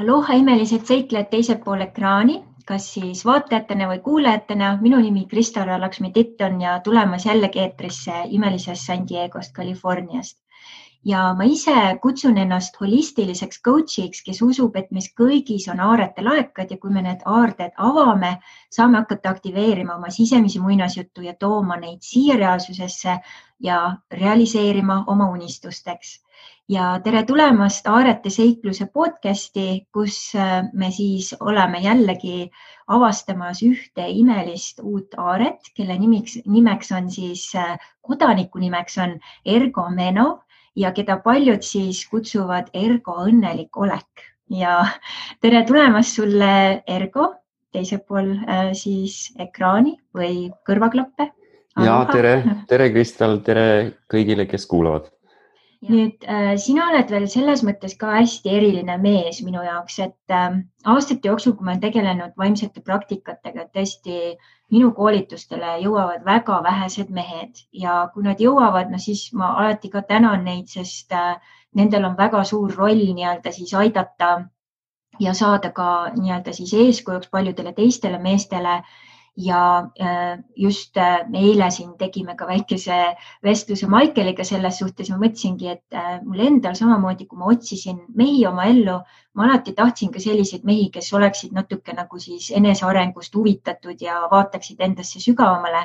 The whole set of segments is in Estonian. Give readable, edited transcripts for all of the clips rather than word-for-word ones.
Aloha imelised seiklejad teisel pool ekraani, kas siis vaatajatena või kuulajatena. Minu nimi Krista-Lara Laksmi-Titt on ja tulemas jällegi eetrisse imelisest San Diegost, Californiast. Ja ma ise kutsun ennast holistiliseks coachiks, kes usub, et meis kõigis on aarete laekad ja kui me need aarded avame, saame hakata aktiveerima oma sisemisi muinasjuttu ja tooma neid siia reaalsusesse ja realiseerima oma unistusteks. Ja tere tulemast Aarete seikluse podcasti, kus me siis oleme jällegi avastamas ühte imelist uut aaret, kelle nimeks on siis, kodaniku nimeks on Ergo Menov ja keda paljud siis kutsuvad Ergo õnnelik olek. Ja tere tulemast sulle, Ergo, teisel pool siis ekraani või kõrvaklappe. Ja tere Kristal, tere kõigile, kes kuulavad. Nüüd sina oled veel selles mõttes ka hästi eriline mees minu jaoks, et aastate jooksul, kui ma olen tegelenud vaimsete praktikatega, tõesti minu koolitustele jõuavad väga vähesed mehed ja kui nad jõuavad, siis ma alati ka tänan neid, sest nendel on väga suur roll nii-öelda siis aidata ja saada ka nii-öelda siis eeskujuks paljudele teistele meestele. Ja just eile siin tegime ka väikese vestluse Maikeliga selles suhtes. Ma mõtlesingi, et mul endal samamoodi, kui ma otsisin mehi oma ellu, ma alati tahtsin ka selliseid mehi, kes oleksid natuke nagu siis enesearengust huvitatud ja vaataksid endasse sügavamale.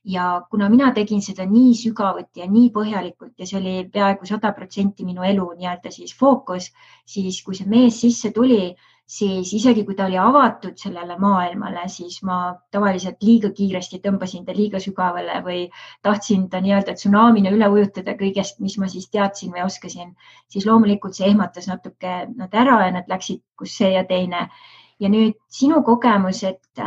Ja kuna mina tegin seda nii sügavuti ja nii põhjalikult ja see oli peaaegu 100% minu elu nii-öelda siis fookus, siis kui see mees sisse tuli, siis isegi kui ta oli avatud sellele maailmale, siis ma tavaliselt liiga kiiresti tõmbasin ta liiga sügavale või tahtsin ta nii-öelda tsunamina üle ujutada kõigest, mis ma siis teadsin või oskasin, siis loomulikult see ehmatas natuke nad ära ja nad läksid kus see ja teine. Ja nüüd sinu kogemus, et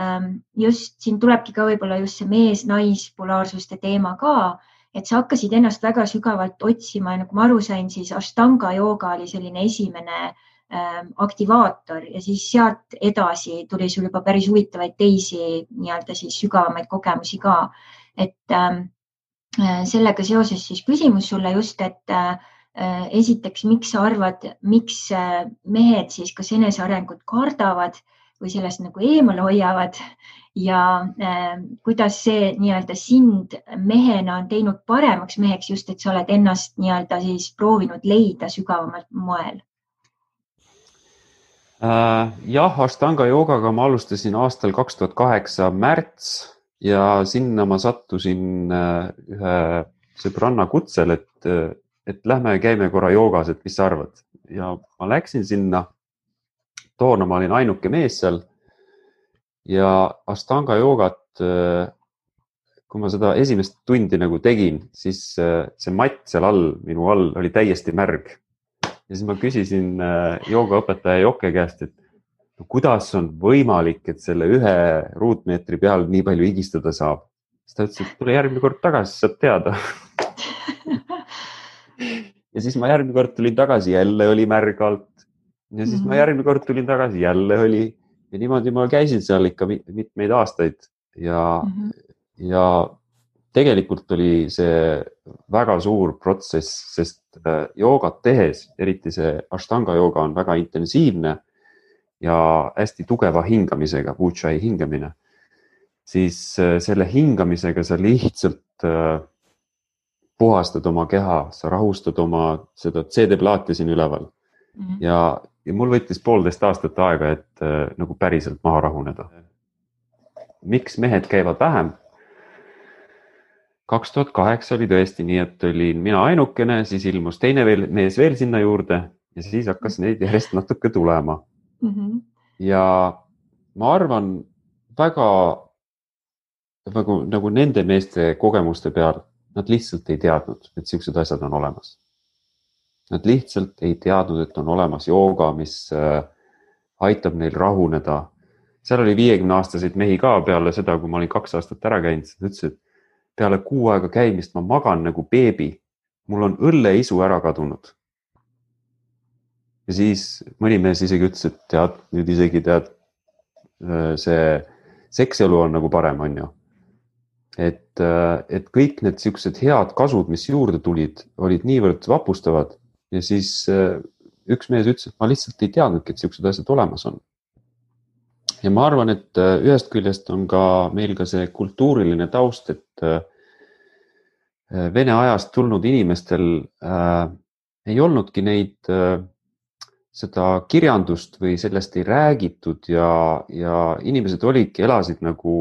just siin tulebki ka võib-olla just see mees-nais-polaarsuste teema ka, et sa hakkasid ennast väga sügavalt otsima ja nagu ma aru sain, siis Ashtanga jooga oli selline esimene aktivaator ja siis sealt edasi tuli sul juba päris huvitavaid teisi nii-öelda siis sügavamaid kogemusi ka. Et sellega seoses siis küsimus sulle just, et esiteks, miks sa arvad, miks mehed siis kas enesearengut kardavad või sellest nagu eemale hoiavad ja kuidas see nii-öelda sind mehena on teinud paremaks meheks just, et sa oled ennast nii-öelda siis proovinud leida sügavamalt moel? Jah, Ashtanga joogaga ma alustasin aastal 2008 märts ja sinna ma sattusin ühe sõbranna kutsel, et lähme käime korra joogas, et mis sa arvad. Ja ma läksin sinna, toona ma olin ainuke mees seal ja Ashtanga joogat, kui ma seda esimest tundi nagu tegin, siis see matt seal all, minu all oli täiesti märg. Ja siis ma küsisin joogaõpetaja Jokke käest, et kuidas on võimalik, et selle 1 ruutmeetri peal nii palju higistada saab. Siis ta ütles, et tule järgmine kord tagasi, saad teada. Ja siis ma järgmine kord tulin tagasi, jälle oli märg alt. Ja siis ma järgmine kord tulin tagasi, jälle oli. Ja niimoodi ma käisin seal ikka mitmeid aastaid. Ja tegelikult oli see väga suur protsess, sest joogat tehes, eriti see Ashtanga jooga on väga intensiivne ja hästi tugeva hingamisega, Ujjayi hingamine, siis selle hingamisega sa lihtsalt puhastad oma keha, sa rahustad oma seda CD-plaati siin üleval. Ja mul võttis 1,5 aastat aega, et nagu päriselt maha rahuneda. Miks mehed käivad vähem? 2008 oli tõesti nii, et olin mina ainukene, siis ilmus teine mees veel sinna juurde ja siis hakkas neid järjest natuke tulema. Ja ma arvan väga nagu nende meeste kogemuste peal, nad lihtsalt ei teadnud, et sellised asjad on olemas. Nad lihtsalt ei teadnud, et on olemas jooga, mis aitab neil rahuneda. Seal oli 50-aastaseid mehi ka peale seda, kui ma olin 2 aastat ära käinud, nad ütlesid, et peale 6 aega käimist ma magan nagu beebi. Mul on õlleisu ära kadunud. Ja siis mõni mees isegi ütles, et tead, nüüd isegi tead, see sekselu on nagu parem, on ju. Et kõik need sellised head kasud, mis juurde tulid, olid niivõrd vapustavad ja siis üks mees ütles, et ma lihtsalt ei teadnudki, et siuksed asjad olemas on. Ja ma arvan, et ühest küljest on ka meil ka see kultuuriline taust, et Vene ajast tulnud inimestel ei olnudki neid, seda kirjandust või sellest ei räägitud ja inimesed elasid nagu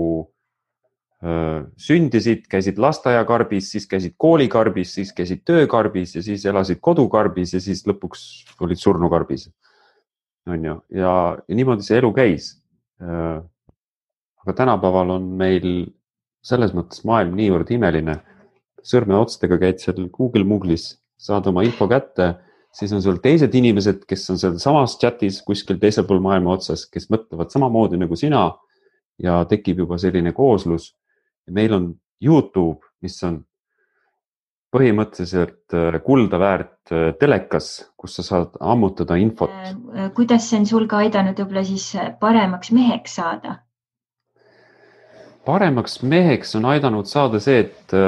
sündisid, käisid lasteaiakarbis, siis käisid koolikarbis, siis käisid töökarbis ja siis elasid kodukarbis ja siis lõpuks olid surnukarbis. On ju? Ja niimoodi see elu käis. Aga tänapäeval on meil selles mõttes maailm niivõrd imeline. Sõrmeotstega käid seal Google-Moogle'is, saad oma info kätte, siis on sul teised inimesed, kes on seal samas chatis kuskil teisel pool maailma otsas, kes mõtlevad samamoodi nagu sina ja tekib juba selline kooslus. Meil on YouTube, mis on põhimõtteliselt kulda väärt telekas, kus sa saad ammutada infot. Kuidas see on sul ka aidanud võib-olla siis paremaks meheks saada? Paremaks meheks on aidanud saada see, et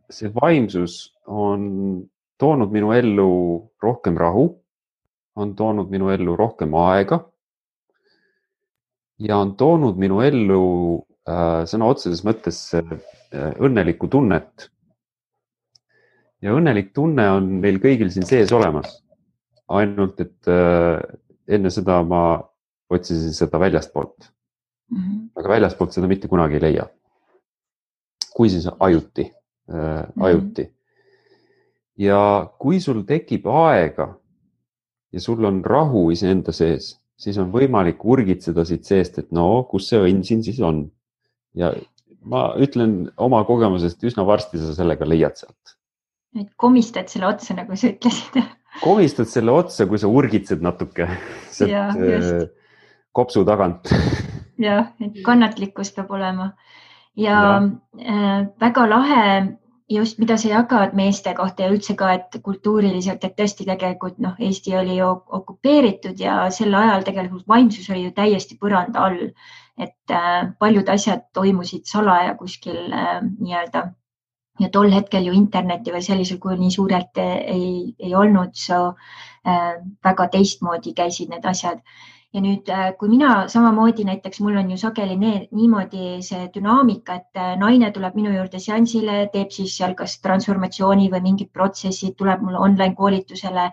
see vaimsus on toonud minu ellu rohkem rahu, on toonud minu ellu rohkem aega ja on toonud minu ellu sõna otseses mõttes õnnelikku tunnet. Ja õnnelik tunne on meil kõigil siin sees olemas. Ainult, et enne seda ma otsisin seda väljastpoolt. Aga väljastpoolt seda mitte kunagi ei leia. Kui siis ajuti. Ja kui sul tekib aega ja sul on rahu iseenda sees, siis on võimalik urgitseda siit seest, et no, kus see õnn siin siis on. Ja ma ütlen oma kogemusest, üsna varsti sa sellega leiad sealt. Et komistad selle otsa, nagu sa ütlesid. Komistad selle otsa, kui sa urgitsed natuke kopsu tagant. Jah, et kannatlikkus peab olema. Ja väga lahe just, mida sa jagad meeste kohta ja üldse ka, et kultuuriliselt, et tõesti tegelikult Eesti oli ju okupeeritud ja sel ajal tegelikult vaimsus oli ju täiesti põranda all. Et paljud asjad toimusid salaja kuskil nii-öelda ja tol hetkel ju interneti või sellisel kujul nii suurelt ei olnud, väga teistmoodi käisid need asjad. Ja nüüd, kui mina samamoodi näiteks, mul on ju sageli niimoodi see dünaamika, et naine tuleb minu juurde seansile, teeb siis seal kas transformatsiooni või mingid protsessid, tuleb mulle online koolitusele,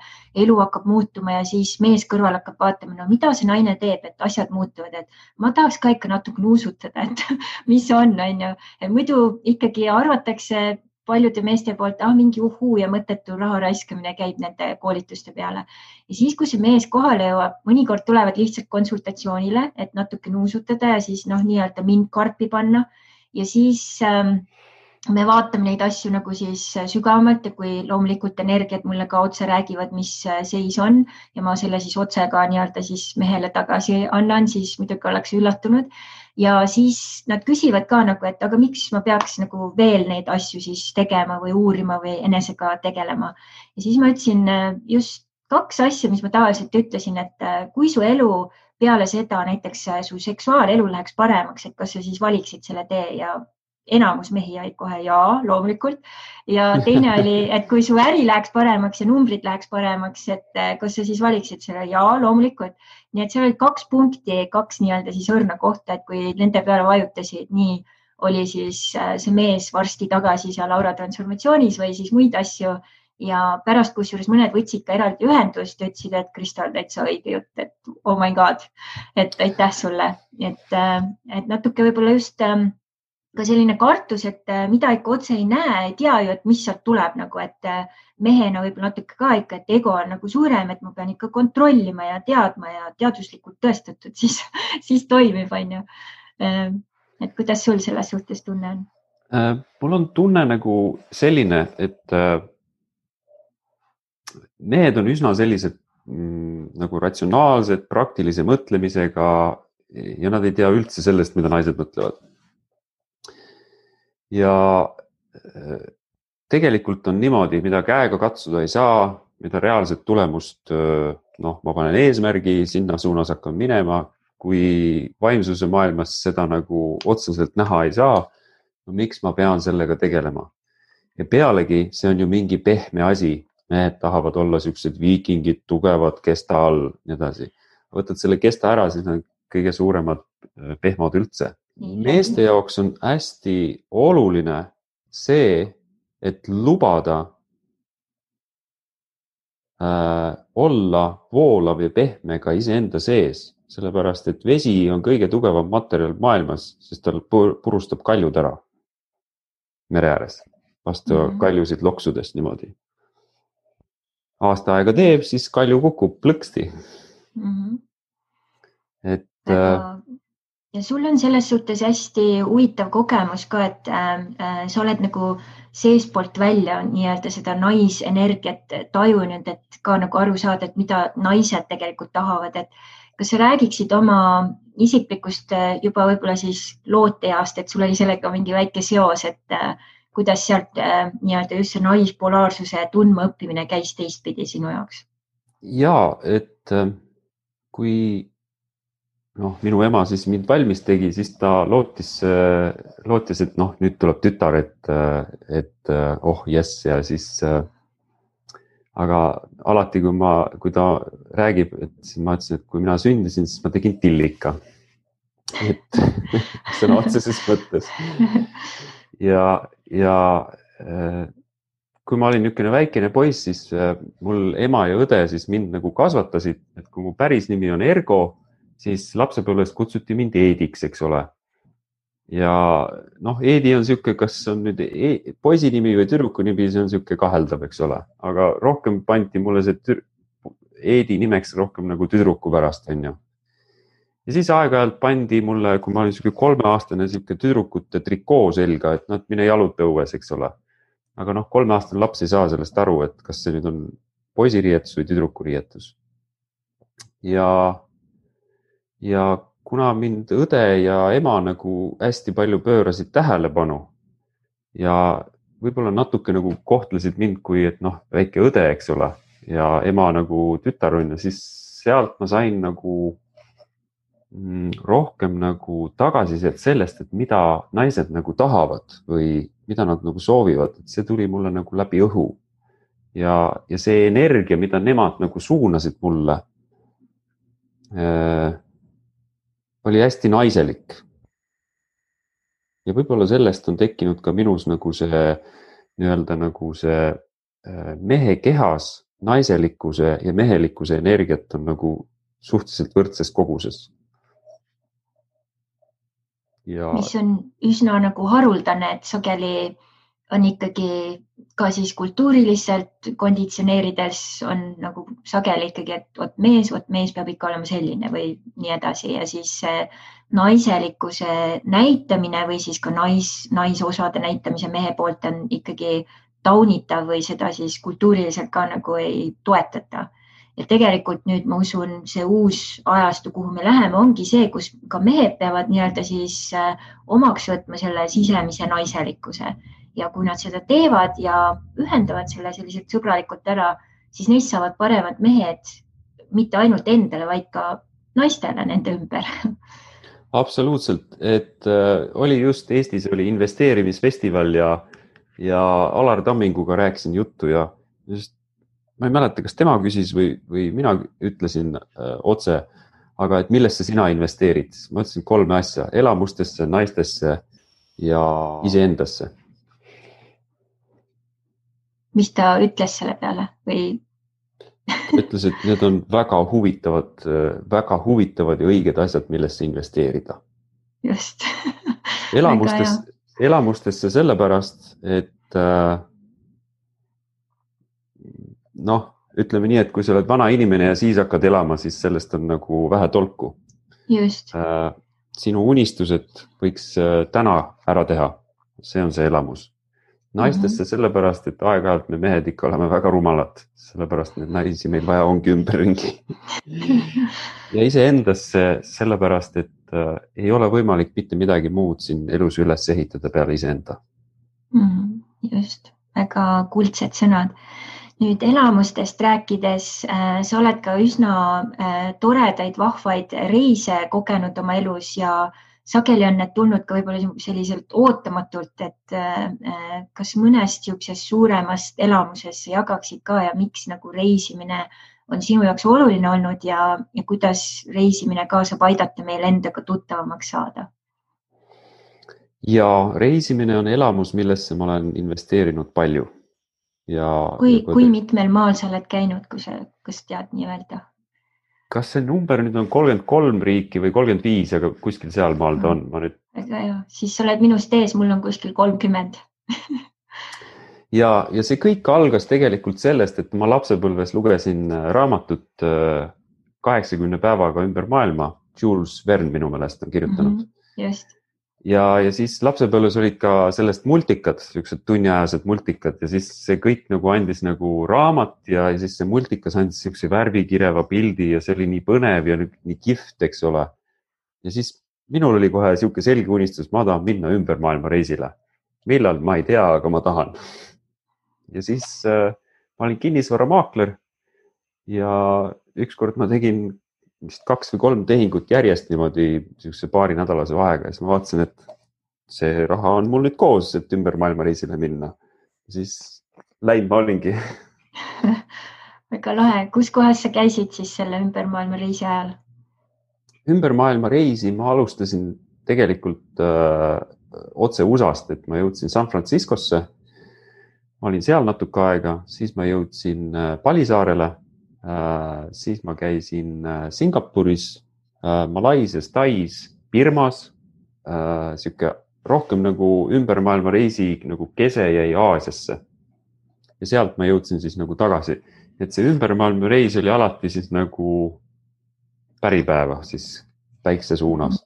elu hakkab muutuma ja siis mees kõrval hakkab vaatama, no mida see naine teeb, et asjad muutuvad, et ma tahaks ka ikka natuke nuusutada, et mis on ju. Muidu ikkagi arvatakse paljude meeste poolt, mingi uhuu ja mõttetu raha raiskamine käib nende koolituste peale. Ja siis, kui see mees kohale jõuab, mõnikord tulevad lihtsalt konsultatsioonile, et natuke nuusutada ja siis nii-öelda mind karpi panna. Ja siis me vaatame neid asju nagu siis sügavamalt ja kui loomulikult energiat mulle ka otse räägivad, mis seis on ja ma selle siis otse ka nii-öelda siis mehele tagasi annan, siis muidugi oleks üllatunud. Ja siis nad küsivad ka nagu, et aga miks ma peaks nagu veel neid asju siis tegema või uurima või enesega tegelema. Ja siis ma ütlesin just 2 asja, mis ma tavaliselt ütlesin, et kui su elu peale seda näiteks su seksuaalelu läheks paremaks, et kas sa siis valiksid selle tee ja enamus mehi jäid kohe jaa, loomulikult. Ja teine oli, et kui su äri läheks paremaks ja numbrid läheks paremaks, et kas sa siis valiksid selle jaa, loomulikult. Nii et seal oli 2 punkti, 2 nii-öelda siis õrna kohta, et kui nende peale vajutasid, nii oli siis see mees varsti tagasi seal aura transformatsioonis või siis muid asju. Ja pärast, kusjuures mõned võtsid ka eraldi ühendust ja ütlesid, et Kristal, täitsa õige jutt, et oh my god, et aitäh sulle. Et natuke võib-olla just ka selline kartus, et mida ikka otse ei näe, ei tea ju, et mis sealt tuleb nagu, et mehena võib-olla natuke ka ikka, et ego on nagu suurem, et ma pean ikka kontrollima ja teadma ja teaduslikult tõestatud, siis toimib, on ju. Et kuidas sul selles suhtes tunne on? Mul on tunne nagu selline, et mehed on üsna sellised nagu ratsionaalsed, praktilise mõtlemisega ja nad ei tea üldse sellest, mida naised mõtlevad. Ja tegelikult on niimoodi, mida käega katsuda ei saa, mida reaalset tulemust, ma panen eesmärgi, sinna suunas hakkan minema, kui vaimsuse maailmas seda nagu otseselt näha ei saa, no miks ma pean sellega tegelema? Ja pealegi see on ju mingi pehme asi, mehed tahavad olla siuksed viikingid, tugevad kesta all, nii edasi. Võtad selle kesta ära, siis on kõige suuremad pehmod üldse. Meeste jaoks on hästi oluline see, et lubada olla voolav ja pehme ka iseenda sees, sellepärast et vesi on kõige tugevam materjal maailmas, sest tal purustab kaljud ära mere ääres, vastu kaljusid loksudest niimoodi. Aasta aega teeb, siis kalju kukub plõksti. Et ja sul on selles suhtes hästi huvitav kogemus ka, et sa oled nagu seespoolt välja nii-öelda seda naisenergiat tajunud, et ka nagu aru saada, et mida naised tegelikult tahavad, et kas sa räägiksid oma isiklikust juba võib-olla siis looteast, et sul oli sellega mingi väike seos, et kuidas sealt nii-öelda just see naispolaarsuse tundma õppimine käis teistpidi sinu jaoks? Jaa, et kui minu ema siis mind valmis tegi, siis ta lootis, et nüüd tuleb tütar, et jess ja siis, aga alati, kui ta räägib, et siis ma ütlesin, et kui mina sündisin, siis ma tegin tillika. Et sõna otseses mõttes. Ja kui ma olin niisugune väikene poiss, siis mul ema ja õde siis mind nagu kasvatasid, et kui mu päris nimi on Ergo, siis lapsepõlves kutsuti mind Eediks, eks ole. Ja Eedi on siuke, kas on nüüd poisi nimi või tüdruku nimi, see on siuke kaheldav, eks ole. Aga rohkem pandi mulle see Eedi nimeks rohkem nagu tüdruku pärast, on ju. Ja siis aeg-ajalt pandi mulle, kui ma olin siuke 3-aastane siuke tüdrukute trikoo selga, et mine jaluta õues, eks ole. Aga 3-aastane laps ei saa sellest aru, et kas see nüüd on poisiriietus või tüdruku riietus. Ja kuna mind õde ja ema nagu hästi palju pöörasid tähelepanu ja võib-olla natuke nagu kohtlesid mind kui, et väike õde, eks ole, ja ema nagu tütarunna, siis sealt ma sain nagu rohkem nagu tagasisidet sellest, et mida naised nagu tahavad või mida nad nagu soovivad, et see tuli mulle nagu läbi õhu. Ja see energia, mida nemad nagu suunasid mulle, oli hästi naiselik. Ja võib-olla sellest on tekkinud ka minus nagu see nii-öelda nagu see mehe kehas naiselikkuse ja mehelikkuse energiat on nagu suhteliselt võrdses koguses. Mis on üsna nagu haruldane, et sageli on ikkagi ka siis kultuuriliselt konditsioneerides on nagu sageli ikkagi, et vot mees peab ikka olema selline või nii edasi ja siis naiselikkuse näitamine või siis ka naisosade näitamise mehe poolt on ikkagi taunitav või seda siis kultuuriliselt ka nagu ei toetata. Ja tegelikult nüüd ma usun, see uus ajastu, kuhu me läheme, ongi see, kus ka mehed peavad nii-öelda siis omaks võtma selle sisemise naiselikkuse. Ja kui nad seda teevad ja ühendavad selle selliselt sõbralikult ära, siis neist saavad paremad mehed mitte ainult endale, vaid ka naistele nende ümber. Absoluutselt, et oli just Eestis oli investeerimisfestival ja Alar Tamminguga rääkisin juttu ja just ma ei mäleta, kas tema küsis või mina ütlesin otse, aga et millesse sina investeerid? Ma ütlesin 3 asja, elamustesse, naistesse ja iseendasse. Mis ta ütles selle peale või? Ütles, et need on väga huvitavad ja õiged asjad, millesse investeerida. Just. Elamustesse sellepärast, et ütleme nii, et kui sa oled vana inimene ja siis hakkad elama, siis sellest on nagu vähe tolku. Just. Sinu unistused võiks täna ära teha. See on see elamus. Naistesse sellepärast, et aeg-ajalt me mehed ikka oleme väga rumalad. Sellepärast need naisi meil vaja ongi ümberringi. Ja iseendasse sellepärast, et ei ole võimalik mitte midagi muud siin elus üles ehitada peale iseenda. Just. Väga kuldsed sõnad. Nüüd elamustest rääkides, sa oled ka üsna toredaid, vahvaid reise kogenud oma elus ja sageli on need tulnud ka võib-olla selliselt ootamatult, et kas mõnest niisugusest suuremast elamusest jagaksid ka ja miks nagu reisimine on sinu jaoks oluline olnud ja kuidas reisimine ka saab aidata meil endaga tuttavamaks saada? Ja reisimine on elamus, millesse ma olen investeerinud palju. Kui mitmel maal sa oled käinud, kas tead nii öelda? Kas see number nüüd on 33 riiki või 35, aga kuskil seal maal ta on. Väga hea, siis sa oled minust ees, mul on kuskil 30. ja see kõik algas tegelikult sellest, et ma lapsepõlves lugesin raamatut 80 päevaga ümber maailma. Jules Verne minu meelest on kirjutanud. Just. Ja siis lapsepõlves olid ka sellest multikad, niisugused tunniajased multikad ja siis see kõik nagu andis nagu raamat ja siis see multikas andis niisuguse värvikireva pildi ja see oli nii põnev ja nii kihvt, eks ole. Ja siis minul oli kohe niisugune selge unistus, ma tahan minna ümber maailma reisile. Millal, ma ei tea, aga ma tahan. Ja siis ma olin kinnisvaramaakler ja ükskord ma tegin vist 2 või 3 tehingut järjest niimoodi niisuguse paari nädalase vahega ja siis ma vaatasin, et see raha on mul nüüd koos, et ümber maailma reisile minna. Siis läinud ma olingi. Väga lahe. Kus kohas sa käisid siis selle ümber maailma reisi ajal? Ümber maailma reisi ma alustasin tegelikult otse USA-st, et ma jõudsin San Franciscosse. Ma olin seal natuke aega, siis ma jõudsin Palisaarele. Siis ma käisin Singapuris, Malaisias, Tais, Birmas, siuke rohkem nagu ümber maailma reisi nagu kese jäi Aasiasse. Ja sealt ma jõudsin siis nagu tagasi. Et see ümber maailma reis oli alati siis nagu päripäeva siis päikse suunas.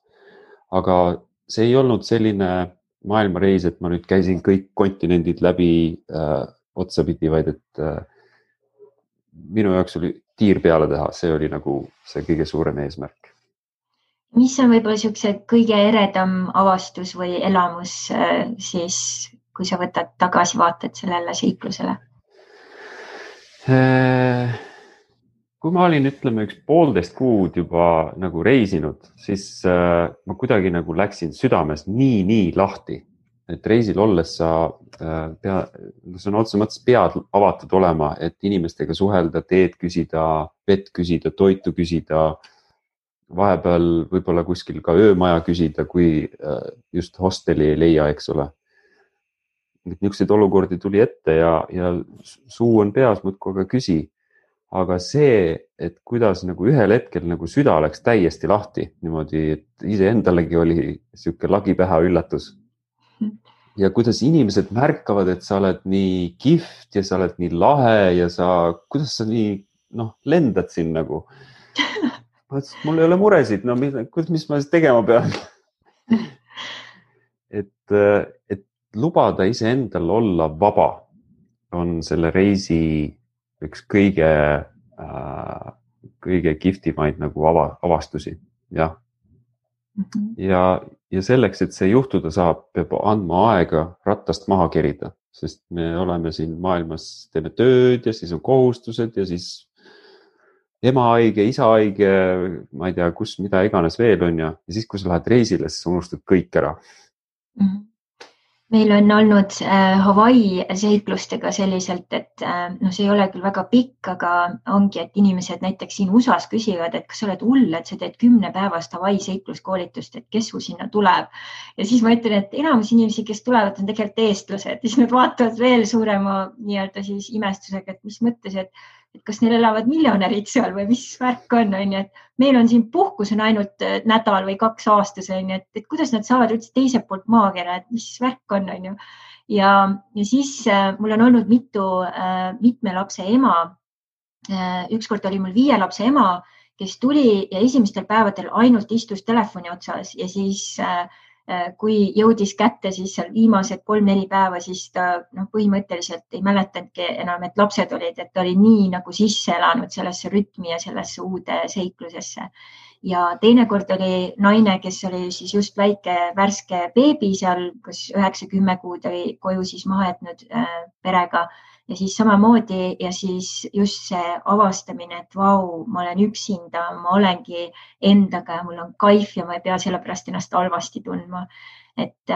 Aga see ei olnud selline maailmareis, et ma nüüd käisin kõik kontinendid läbi otsapidi, vaid et minu jaoks oli tiir peale teha, see oli nagu see kõige suurem eesmärk. Mis on võib-olla niisuguse kõige eredam avastus või elamus siis, kui sa võtad tagasivaated sellele seiklusele? Kui ma olin, ütleme, 1,5 kuud juba nagu reisinud, siis ma kuidagi nagu läksin südames nii lahti. Et reisil olles see on otse mõttes pead avatud olema, et inimestega suhelda, teed küsida, vett küsida, toitu küsida, vahepeal võib-olla kuskil ka öömaja küsida, kui just hosteli ei leia, eks ole. Niisuguseid olukordi tuli ette ja suu on peas, muudkui aga küsi. Aga see, et kuidas nagu ühel hetkel nagu süda läks täiesti lahti, niimoodi, et iseendalegi oli niisugune lagipäha üllatus. Ja kuidas inimesed märkavad, et sa oled nii kihvt ja sa oled nii lahe ja kuidas sa nii lendad siin nagu. Mul ei ole muresid, mis ma siis tegema pean? Et lubada iseendal olla vaba on selle reisi üks kõige kihvtimaid nagu avastusi. Jah. Ja selleks, et see juhtuda saab, peab andma aega rattast maha kerida, sest me oleme siin maailmas, teeme tööd ja siis on kohustused ja siis ema haige, isa haige, ma ei tea, kus, mida iganes veel on ja siis, kui sa lähed reisile, siis unustad kõik ära. Meil on olnud Hawaii seiklustega selliselt, et see ei ole küll väga pikk, aga ongi, et inimesed näiteks siin USAs küsivad, et kas sa oled hull, et sa teed 10-päevast Hawaii seikluskoolitust, et kes su sinna tuleb. Ja siis ma ütlen, et enamus inimesi, kes tulevad, on tegelikult eestlased. Ja siis nad vaatavad veel suurema nii-öelda siis imestusega, et mis mõttes, et kas neil elavad miljonärid seal või mis värk on, et meil on siin puhkus on ainult nädal või 2 aastas, et kuidas nad saavad üldse teiselt poolt maakera, et mis värk on. Ja siis mul on olnud mitme lapse ema. Ükskord oli mul 5 lapse ema, kes tuli ja esimestel päevadel ainult istus telefoni otsas ja siis kui jõudis kätte siis seal viimased 3-4 päeva, siis ta põhimõtteliselt ei mäletanudki enam, et lapsed olid, et ta oli nii nagu sisse elanud sellesse rütmi ja sellesse uude seiklusesse. ja teinekord oli naine, kes oli siis just väike värske beebi seal, kas 9-10 kuud oli koju siis maha jätnud perega ja siis samamoodi ja siis just see avastamine, et vau, ma olen üksinda, ma olengi endaga ja mul on kaif ja ma ei pea sellepärast ennast halvasti tundma. Et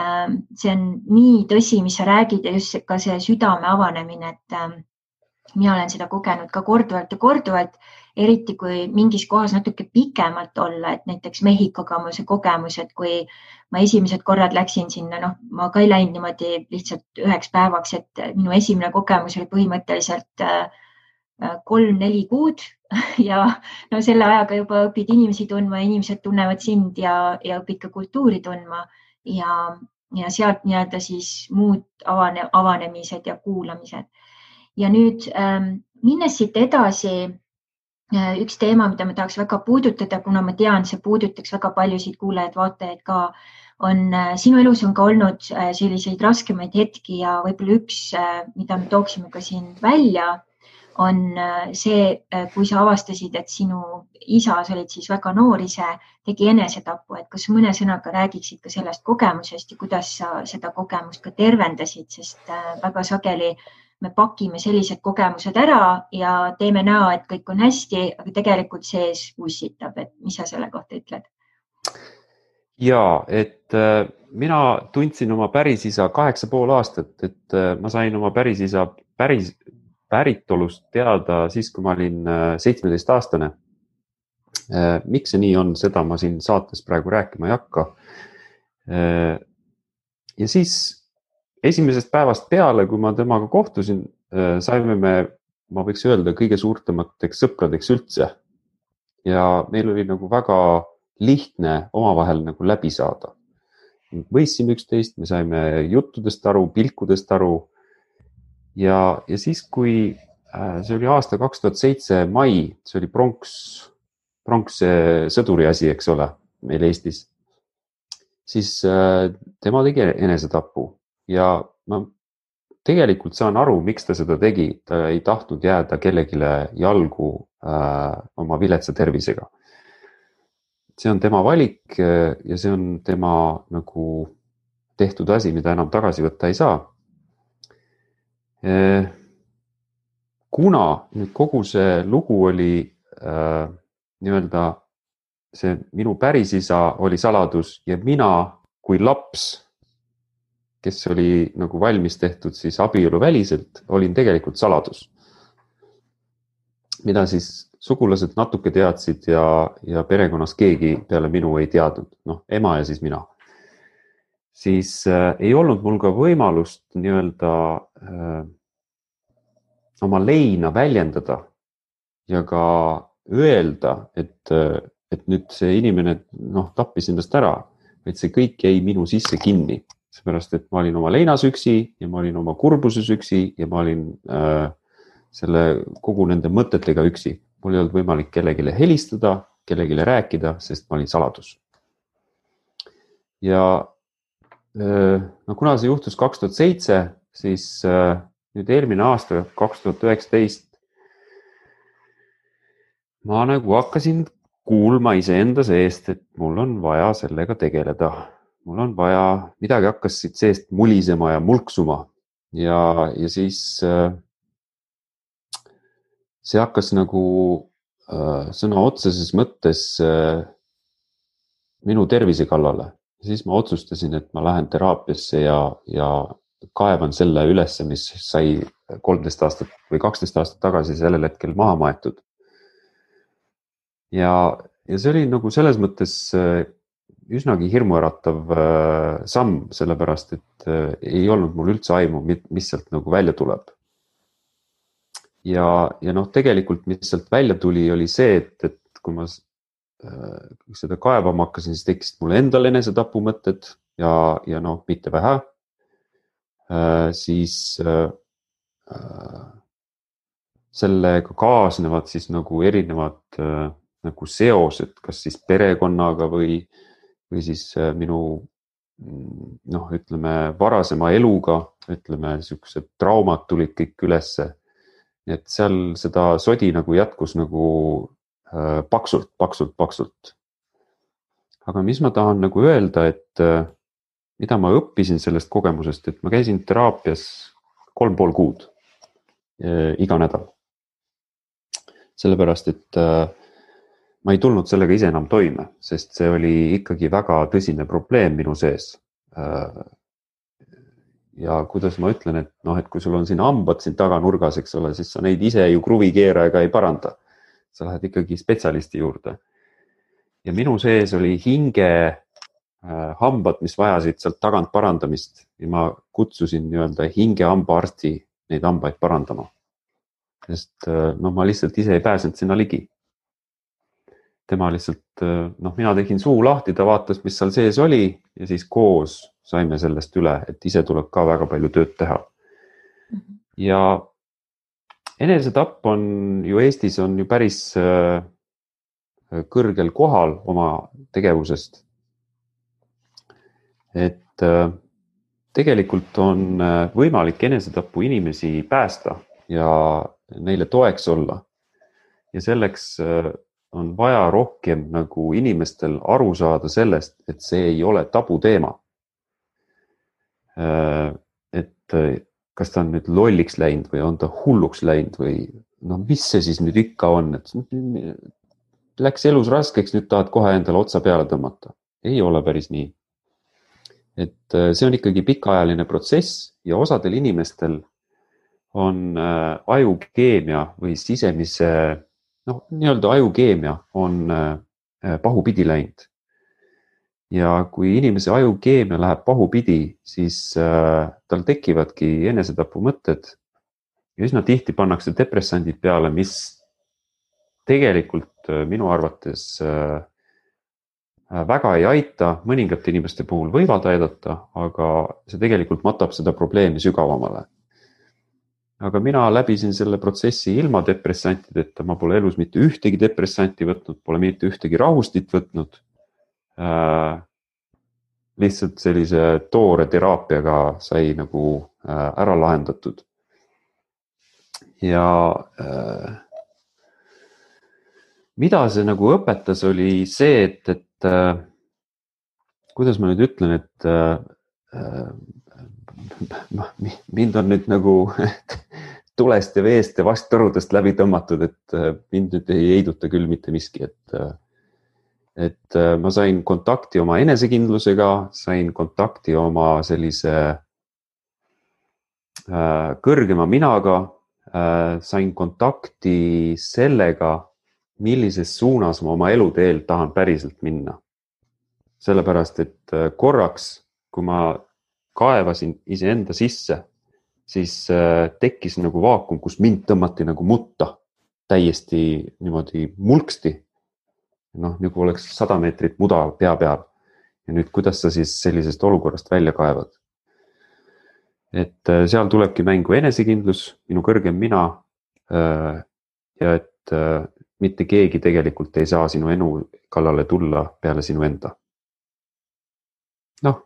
see on nii tõsi, mis sa räägid ja just ka see südame avanemine, et mina olen seda kogenud ka korduvalt ja korduvalt, eriti kui mingis kohas natuke pikemalt olla, et näiteks Mehhikoga mul see kogemus, et kui ma esimesed korrad läksin sinna, noh, ma ka ei läinud niimoodi lihtsalt 1 päevaks, et minu esimene kogemus oli põhimõtteliselt 3-4 kuud ja no selle ajaga juba õpid inimesi tundma, inimesed tunnevad sind ja õpid ka kultuuri tundma ja sealt nii-öelda siis muud avanemised ja kuulamised. Ja nüüd minnes siit edasi, üks teema, mida ma tahaks väga puudutada, kuna ma tean, see puudutaks väga paljusid kuulajaid, vaatajaid ka, on sinu elus on ka olnud selliseid raskemaid hetki ja võib-olla üks, mida me tooksime ka siin välja, on see, kui sa avastasid, et sinu isa, sa olid siis väga noor ise, tegi enesetapu, et kas mõne sõnaga räägiksid ka sellest kogemusest ja kuidas sa seda kogemust ka tervendasid, sest väga sageli me pakime sellised kogemused ära ja teeme näo, et kõik on hästi, aga tegelikult sees ussitab, et mis sa selle kohta ütled? Ja, et mina tundsin oma pärisisa 8,5 aastat, et ma sain oma pärisisa päritolust teada siis, kui ma olin 17-aastane. Miks see nii on, seda ma siin saates praegu rääkima ei hakka. Ja siis esimesest päevast peale, kui ma temaga kohtusin, saime me, ma võiks öelda, kõige suurtemateks sõpradeks üldse. Ja meil oli nagu väga lihtne omavahel nagu läbi saada. Võistsime üksteist, me saime juttudest aru, pilkudest aru. Ja siis, kui see oli aasta 2007 mai, see oli pronks sõduri asi, eks ole, meil Eestis, siis tema tegi enesetapu ja ma tegelikult saan aru, miks ta seda tegi. Ta ei tahtnud jääda kellegile jalgu oma viletsa tervisega. See on tema valik ja see on tema nagu tehtud asi, mida enam tagasi võtta ei saa. Kuna nüüd kogu see lugu oli nii-öelda see minu pärisisa oli saladus ja mina kui laps, kes oli nagu valmis tehtud siis abieluväliselt, olin tegelikult saladus. Mida siis sugulased natuke teadsid ja perekonnas keegi peale minu ei teadnud, noh, ema ja siis mina. Siis ei olnud mul ka võimalust nii-öelda oma leina väljendada ja ka öelda, et nüüd see inimene tappis endast ära, et see kõik jäi minu sisse kinni, seepärast et ma olin oma leinas üksi ja ma olin oma kurbuses üksi ja ma olin selle kogu nende mõtetega üksi. Mul ei olnud võimalik kellegile helistada, kellegile rääkida, sest ma olin saladus. Ja kuna see juhtus 2007, siis nüüd eelmine aasta 2019 ma nagu hakkasin kuulma iseenda seest, et mul on vaja sellega tegeleda. Mul on vaja, midagi hakkas siit seest mulisema ja mulksuma ja siis see hakkas nagu sõna otseses mõttes minu tervise kallale. Siis ma otsustasin, et ma lähen teraapiasse ja kaevan selle ülesse, mis sai 13 aastat või 12 aastat tagasi sellel hetkel maha maetud. Ja see oli nagu selles mõttes üsnagi hirmuäratav samm, sellepärast, et ei olnud mul üldse aimu, mis sealt nagu välja tuleb. Ja tegelikult, mis sealt välja tuli, oli see, et kui ma seda kaevama hakkasin, siis tekkisid mulle endal enesetapu mõtted ja mitte vähe. Siis sellega kaasnevad siis nagu erinevad nagu seosed, kas siis perekonnaga või siis minu ütleme varasema eluga, ütleme niisugused traumad tulid kõik ülesse. Et seal seda sodi nagu jätkus nagu paksult. aga mis ma tahan nagu öelda, et mida ma õppisin sellest kogemusest, et ma käisin teraapias 3,5 kuud iga nädal. Sellepärast, et ma ei tulnud sellega ise enam toime, sest see oli ikkagi väga tõsine probleem minu sees. Ja kuidas ma ütlen, et noh, et kui sul on siin hambad siin taganurgas, eks ole, siis sa neid ise ju kruvikeerajaga ei paranda. Sa lähed ikkagi spetsialisti juurde. Ja minu sees oli hinge hambad, mis vajasid sealt tagant parandamist ja ma kutsusin nii-öelda hinge hambaarsti neid hambaid parandama. Sest noh, ma lihtsalt ise ei pääsenud sinna ligi. Tema lihtsalt, noh, mina tegin suu lahti, ta vaatas, mis seal sees oli ja siis koos saime sellest üle, et ise tuleb ka väga palju tööd teha. Ja enesetapp on ju Eestis on ju päris kõrgel kohal oma tegevusest. Et tegelikult on võimalik enesetapu inimesi päästa ja neile toeks olla. Ja selleks on vaja rohkem nagu inimestel aru saada sellest, et see ei ole tabuteema. Et kas ta on nüüd lolliks läinud või on ta hulluks läinud või noh, mis see siis nüüd ikka on, et läks elus raskeks, nüüd tahad kohe endale otsa peale tõmmata. Ei ole päris nii. Et see on ikkagi pikaajaline protsess ja osadel inimestel on ajukeemia või sisemise, noh, nii-öelda ajukeemia on pahupidi läinud. Ja kui inimese ajukeemia läheb pahupidi, siis tal tekivadki enesetapu mõtted ja üsna tihti pannakse depressandid peale, mis tegelikult minu arvates väga ei aita, mõningate inimeste puhul võivad aidata, aga see tegelikult matab seda probleemi sügavamale. Aga mina läbisin selle protsessi ilma depressantideta, ma pole elus mitte ühtegi depressanti võtnud, pole mitte ühtegi rahustit võtnud. Lihtsalt sellise toore teraapiaga sai nagu ära lahendatud. Ja mida see nagu õpetas oli see, et kuidas ma nüüd ütlen, et mind on nüüd nagu tulest ja veest ja vasttõrudest läbi tõmmatud, et mind nüüd ei heiduta küll mitte miski, et ma sain kontakti oma enesekindlusega, sain kontakti oma sellise kõrgema minaga, sain kontakti sellega, millises suunas ma oma eluteel tahan päriselt minna. Sellepärast, et korraks, kui ma kaevasin iseenda sisse, siis tekkis nagu vaakum, kus mind tõmmati nagu mutta täiesti niimoodi mulksti. Noh, nagu oleks 100 meetrit muda pea peal. Ja nüüd, kuidas sa siis sellisest olukorrast välja kaevad? Et seal tulebki mängu enesekindlus, minu kõrgem mina ja et mitte keegi tegelikult ei saa sinu enu kallale tulla peale sinu enda. Noh,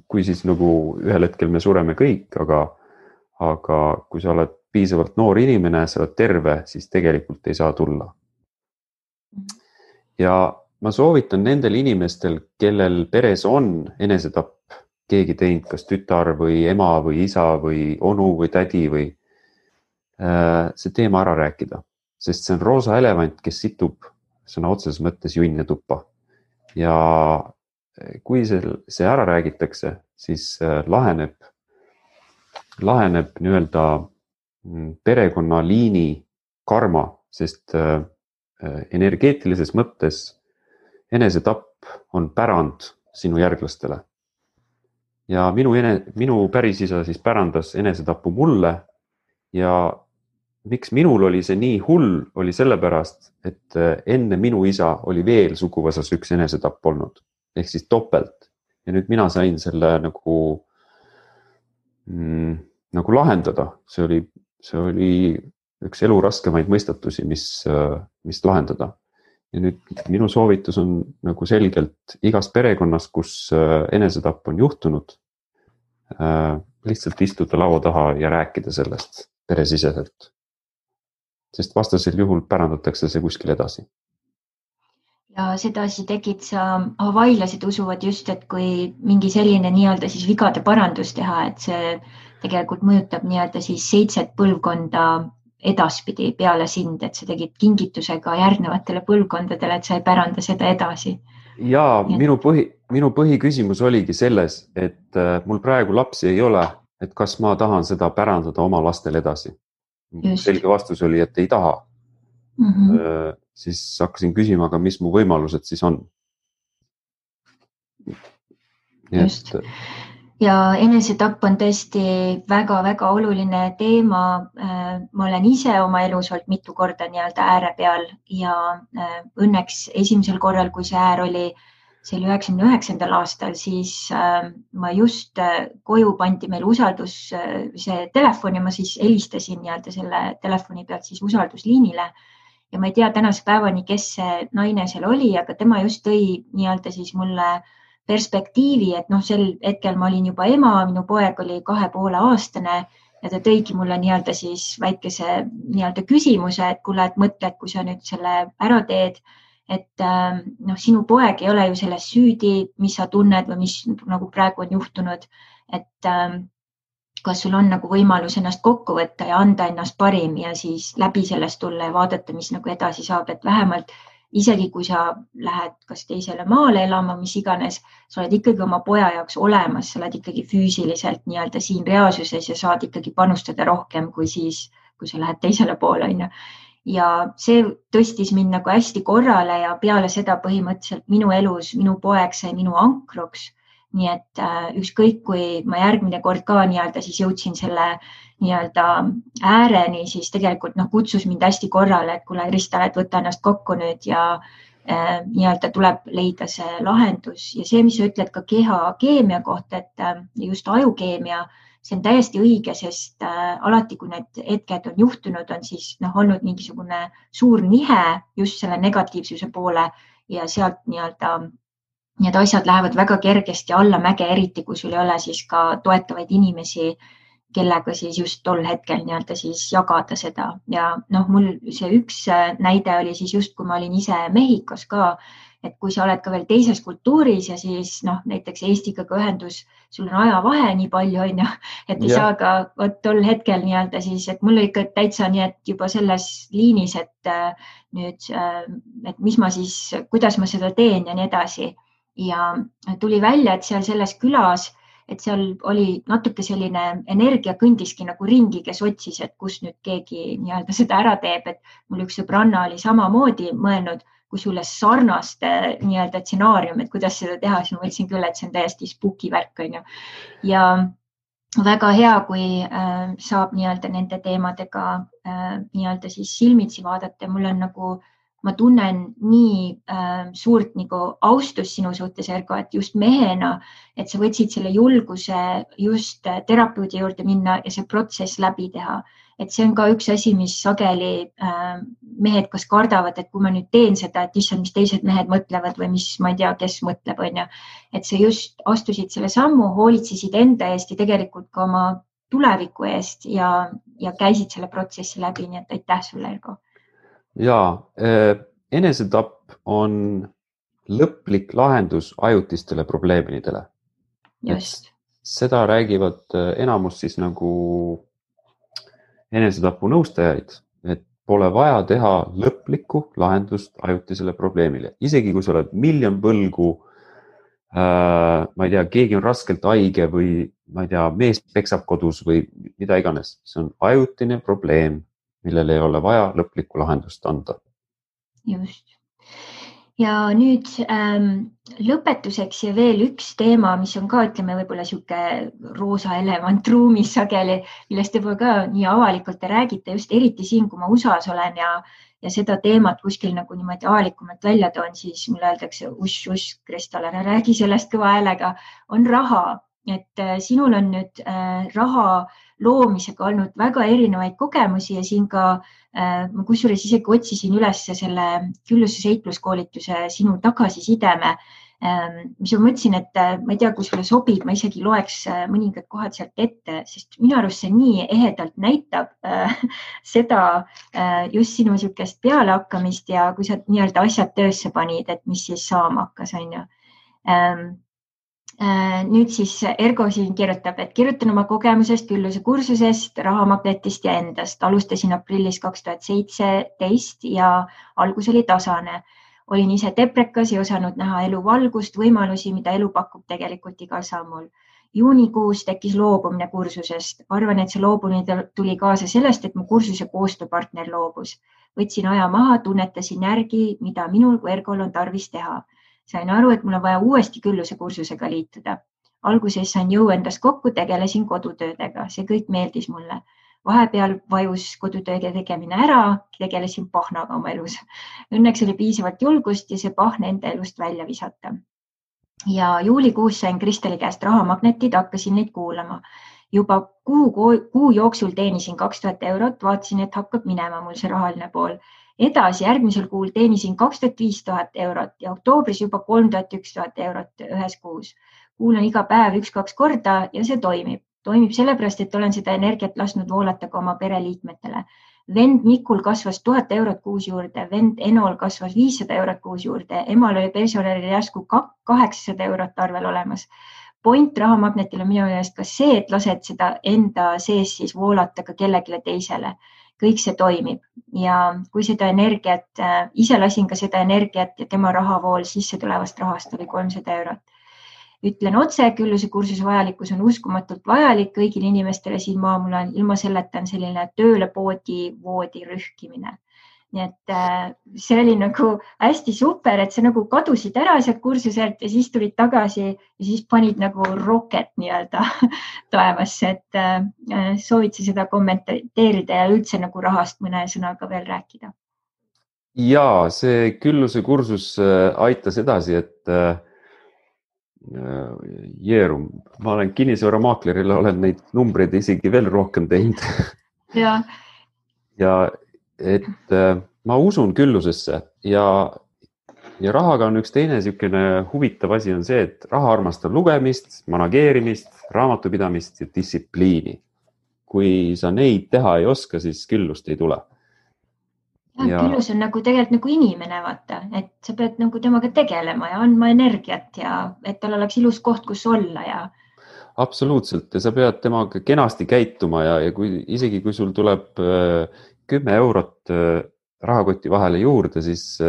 kui siis nagu ühel hetkel me sureme kõik, aga kui sa oled piisavalt noor inimene, sa oled terve, siis tegelikult ei saa tulla. Ja ma soovitan nendel inimestel, kellel peres on enesetapp, keegi teinud, kas tütar või ema või isa või onu või tädi või see teema ära rääkida. Sest see on roosa elevant, kes situb sõna otseses mõttes junne tuppa. Ja kui see ära räägitakse, siis laheneb nii-öelda perekonnaliini karma, sest energeetilises mõttes enesetapp on pärand sinu järglastele. Ja minu pärisisa siis pärandas enesetapu mulle ja miks minul oli see nii hull, oli sellepärast, et enne minu isa oli veel suguvõsas üks enesetapp olnud, ehk siis topelt. Ja nüüd mina sain selle nagu lahendada. See oli üks elu raskemaid mõistatusi, mis lahendada. Ja nüüd minu soovitus on nagu selgelt igas perekonnas, kus enesetapp on juhtunud, lihtsalt istuda laua taha ja rääkida sellest peresiseselt. Sest vastasel juhul pärandatakse see kuskil edasi. Ja sedasi tegid sa, havailased usuvad just, et kui mingi selline nii-öelda siis vigade parandus teha, et see tegelikult mõjutab nii-öelda siis 7 põlvkonda edaspidi peale sind, et sa tegid kingitusega järgnevatele põlvkondadele, et sa ei päranda seda edasi. Ja minu põhiküsimus oligi selles, et mul praegu lapsi ei ole, et kas ma tahan seda pärandada oma lastele edasi. Selge vastus oli, et ei taha. Siis hakkasin küsima, aga mis mu võimalused siis on. Just. Ja enesetapp on tõesti väga-väga oluline teema. Ma olen ise oma elus olnud mitu korda nii-öelda ääre peal ja õnneks esimesel korral, kui see äär oli, see oli 99. aastal, siis ma just koju pandi meil usaldus, see telefon ja ma siis helistasin nii-öelda selle telefoni pealt siis usaldusliinile. Ja ma ei tea tänase päevani, kes see naine seal oli, aga tema just tõi nii-öelda siis mulle perspektiivi, et sel hetkel ma olin juba ema, minu poeg oli 2,5-aastane ja ta tõigi mulle nii-öelda siis väikese nii-öelda küsimuse, et kuule, et mõtle, et kui sa nüüd selle ära teed, et sinu poeg ei ole ju selles süüdi, mis sa tunned või mis nagu praegu on juhtunud, et kas sul on nagu võimalus ennast kokku võtta ja anda ennast parim ja siis läbi sellest tulla ja vaadata, mis nagu edasi saab, et vähemalt isegi kui sa lähed kas teisele maale elama, mis iganes, sa oled ikkagi oma poja jaoks olemas, sa oled ikkagi füüsiliselt nii-öelda siin reaalsuses ja saad ikkagi panustada rohkem kui siis, kui sa lähed teisele poole. Ja see tõstis mind nagu hästi korrale ja peale seda põhimõtteliselt minu elus, minu poeg sai minu ankruks. Nii et ükskõik, kui ma järgmine kord ka nii-öelda siis jõudsin selle nii-öelda ääreni, siis tegelikult kutsus mind hästi korrale, et kuule, Krista, et võta ennast kokku nüüd ja nii-öelda tuleb leida see lahendus. Ja see, mis sa ütled ka keha keemia kohta, et just ajukeemia, see on täiesti õige, sest alati, kui need hetked on juhtunud, on siis olnud mingisugune suur nihe just selle negatiivsuse poole ja sealt nii-öelda need asjad lähevad väga kergesti allamäge, eriti kui sul ei ole siis ka toetavaid inimesi, kellega siis just tol hetkel nii-öelda siis jagada seda. Ja mul see üks näide oli siis just, kui ma olin ise Mehhikos ka, et kui sa oled ka veel teises kultuuris ja siis näiteks Eestiga ka ühendus, sul on ajavahe nii palju, et ei saa ka tol hetkel nii-öelda siis, et mul oli ikka täitsa nii, et juba selles liinis, et nüüd, et mis ma siis, kuidas ma seda teen ja nii edasi. Ja tuli välja, et seal selles külas, et seal oli natuke selline energia kõndiski nagu ringi, kes otsis, et kus nüüd keegi nii-öelda seda ära teeb, et mul üks sõbranna oli samamoodi mõelnud, kui sulle sarnast nii-öelda stsenaarium, et kuidas seda teha, siis ma mõtlesin küll, et see on täiesti spooky värk. Ja väga hea, kui saab nii-öelda nende teemadega nii-öelda siis silmitsi vaadata. Mul on nagu ma tunnen nii suurt nagu austus sinu suhtes, Ergo, et just mehena, et sa võtsid selle julguse just terapeudi juurde minna ja see protsess läbi teha. Et see on ka üks asi, mis sageli mehed kas kardavad, et kui ma nüüd teen seda, et issand, mis teised mehed mõtlevad või mis ma ei tea, kes mõtleb, et sa just astusid selle sammu, hoolitsesid enda eest ja tegelikult ka oma tuleviku eest ja käisid selle protsessi läbi, nii et aitäh sulle, Ergo. Ja, enesetapp on lõplik lahendus ajutistele probleemidele. Just. Seda räägivad enamus siis nagu enesetapu nõustajaid, et pole vaja teha lõplikku lahendust ajutisele probleemile. Isegi kui sa oled miljon võlgu, ma ei tea, keegi on raskelt haige või ma ei tea, mees peksab kodus või mida iganes. See on ajutine probleem, millele ei ole vaja lõplikku lahendust anda. Just. Ja nüüd lõpetuseks ja veel üks teema, mis on ka, ütleme, võib-olla siuke roosa elevant ruumis sageli, millest te ka nii avalikult te räägite, just eriti siin, kui ma USA-s olen ja seda teemat kuskil nagu niimoodi avalikumalt välja toon, siis mulle öeldakse, uss, Kristal, ära räägi sellest kõva häälega, on raha. Et sinul on nüüd raha loomisega olnud väga erinevaid kogemusi ja siin ka ma kusjuures isegi otsisin üles selle külluses heitluskoolituse sinu tagasisideme, mis ma mõtlesin, et ma ei tea, kui sulle sobib, ma isegi loeks mõningad kohad sealt ette, sest minu arust see nii ehedalt näitab seda just sinu niisugust pealehakkamist ja kui sa nii-öelda asjad töösse panid, et mis siis saama hakkas, on ju. Nüüd siis Ergo siin kirjutab, et kirjutan oma kogemusest, külluse kursusest, rahamagnetist ja endast. Alustasin aprillis 2017 ja algus oli tasane. Olin ise deprekas ja osanud näha elu valgust, võimalusi, mida elu pakub tegelikult igal sammul. Juunikuus tekkis loobumine kursusest. Arvan, et see loobumine tuli kaasa sellest, et mu kursuse koostööpartner loobus. Võtsin aja maha, tunnetasin järgi, mida minul kui Ergol on tarvis teha. Sain aru, et mul on vaja uuesti külluse kursusega liituda. Alguses sain jõu endast kokku, tegelesin kodutöödega. See kõik meeldis mulle. Vahepeal vajus kodutööde tegemine ära, tegelesin pahnaga oma elus. Õnneks oli piisavalt julgust ja see pahne enda elust välja visata. Ja juulikuus sain Kristeli käest rahamagnetid, hakkasin neid kuulama. Juba kuu jooksul teenisin 2000 eurot, vaatasin, et hakkab minema mul see rahaline pool. Edasi järgmisel kuul teenisin 2500 eurot ja oktoobris juba 3000-1000 eurot ühes kuus. Kuulan iga päev 1-2 korda ja see toimib. Toimib sellepärast, et olen seda energiat lasknud voolata ka oma pereliikmetele. Vend Mikul kasvas 1000 eurot kuus juurde, vend Enol kasvas 500 eurot kuus juurde, emal oli pensionäril järsku 800 eurot arvel olemas. Point rahamagnetil on minu meelest ka see, et lased seda enda sees siis voolata ka kellelegi teisele. Kõik see toimib ja kui seda energiat, ise lasin ka seda energiat ja tema rahavool sisse tulevast rahast oli 300 eurot. Ütlen otse, külluse kursuse vajalikkus on uskumatult vajalik kõigile inimestele siin maamul on ilma selleta on selline tööle voodi rühkimine. Nii et see oli nagu hästi super, et sa nagu kadusid ära sealt kursuselt ja siis tulid tagasi ja siis panid nagu roket nii-öelda taevasse, et soovid sa seda kommenteerida ja üldse nagu rahast mõne sõnaga veel rääkida? Ja see külluse kursus aitas edasi, et Jeerum, ma olen kinnisvaramaakleril, olen neid numbreid isegi veel rohkem teinud. Ja et ma usun küllusesse ja rahaga on üks teine niisugune huvitav asi on see, et raha armastab lugemist, manageerimist, raamatupidamist ja distsipliini. Kui sa neid teha ei oska, siis küllust ei tule. Küllus on nagu tegelikult nagu inimene, vaata, et sa pead nagu temaga tegelema ja andma energiat ja et tal oleks ilus koht, kus olla ja. Absoluutselt ja sa pead temaga kenasti käituma ja isegi kui sul tuleb 10 eurot rahakoti vahele juurde, siis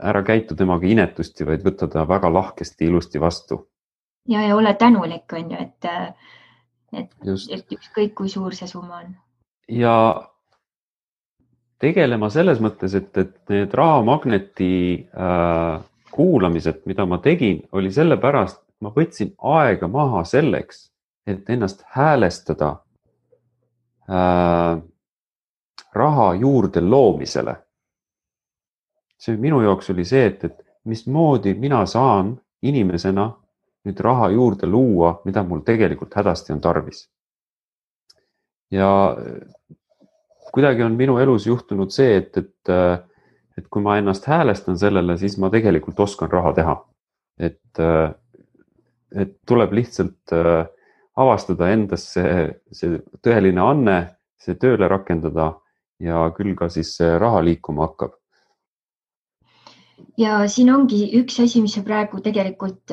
ära käitu temaga inetusti, vaid võtta ta väga lahkesti ilusti vastu. Ja ole tänulik, on ju, et ükskõik kui suur see summa on. Ja tegelema selles mõttes, et need rahamagneti kuulamised, mida ma tegin, oli sellepärast, et ma võtsin aega maha selleks, et ennast häälestada raha juurde loomisele. See minu jaoks oli see, et mismoodi mina saan inimesena nüüd raha juurde luua, mida mul tegelikult hädasti on tarvis. Ja kuidagi on minu elus juhtunud see, et kui ma ennast häälestan sellele, siis ma tegelikult oskan raha teha. Et tuleb lihtsalt avastada endas see tõeline anne, see tööle rakendada ja küll ka siis raha liikuma hakkab. Ja siin ongi üks asi, mis sa praegu tegelikult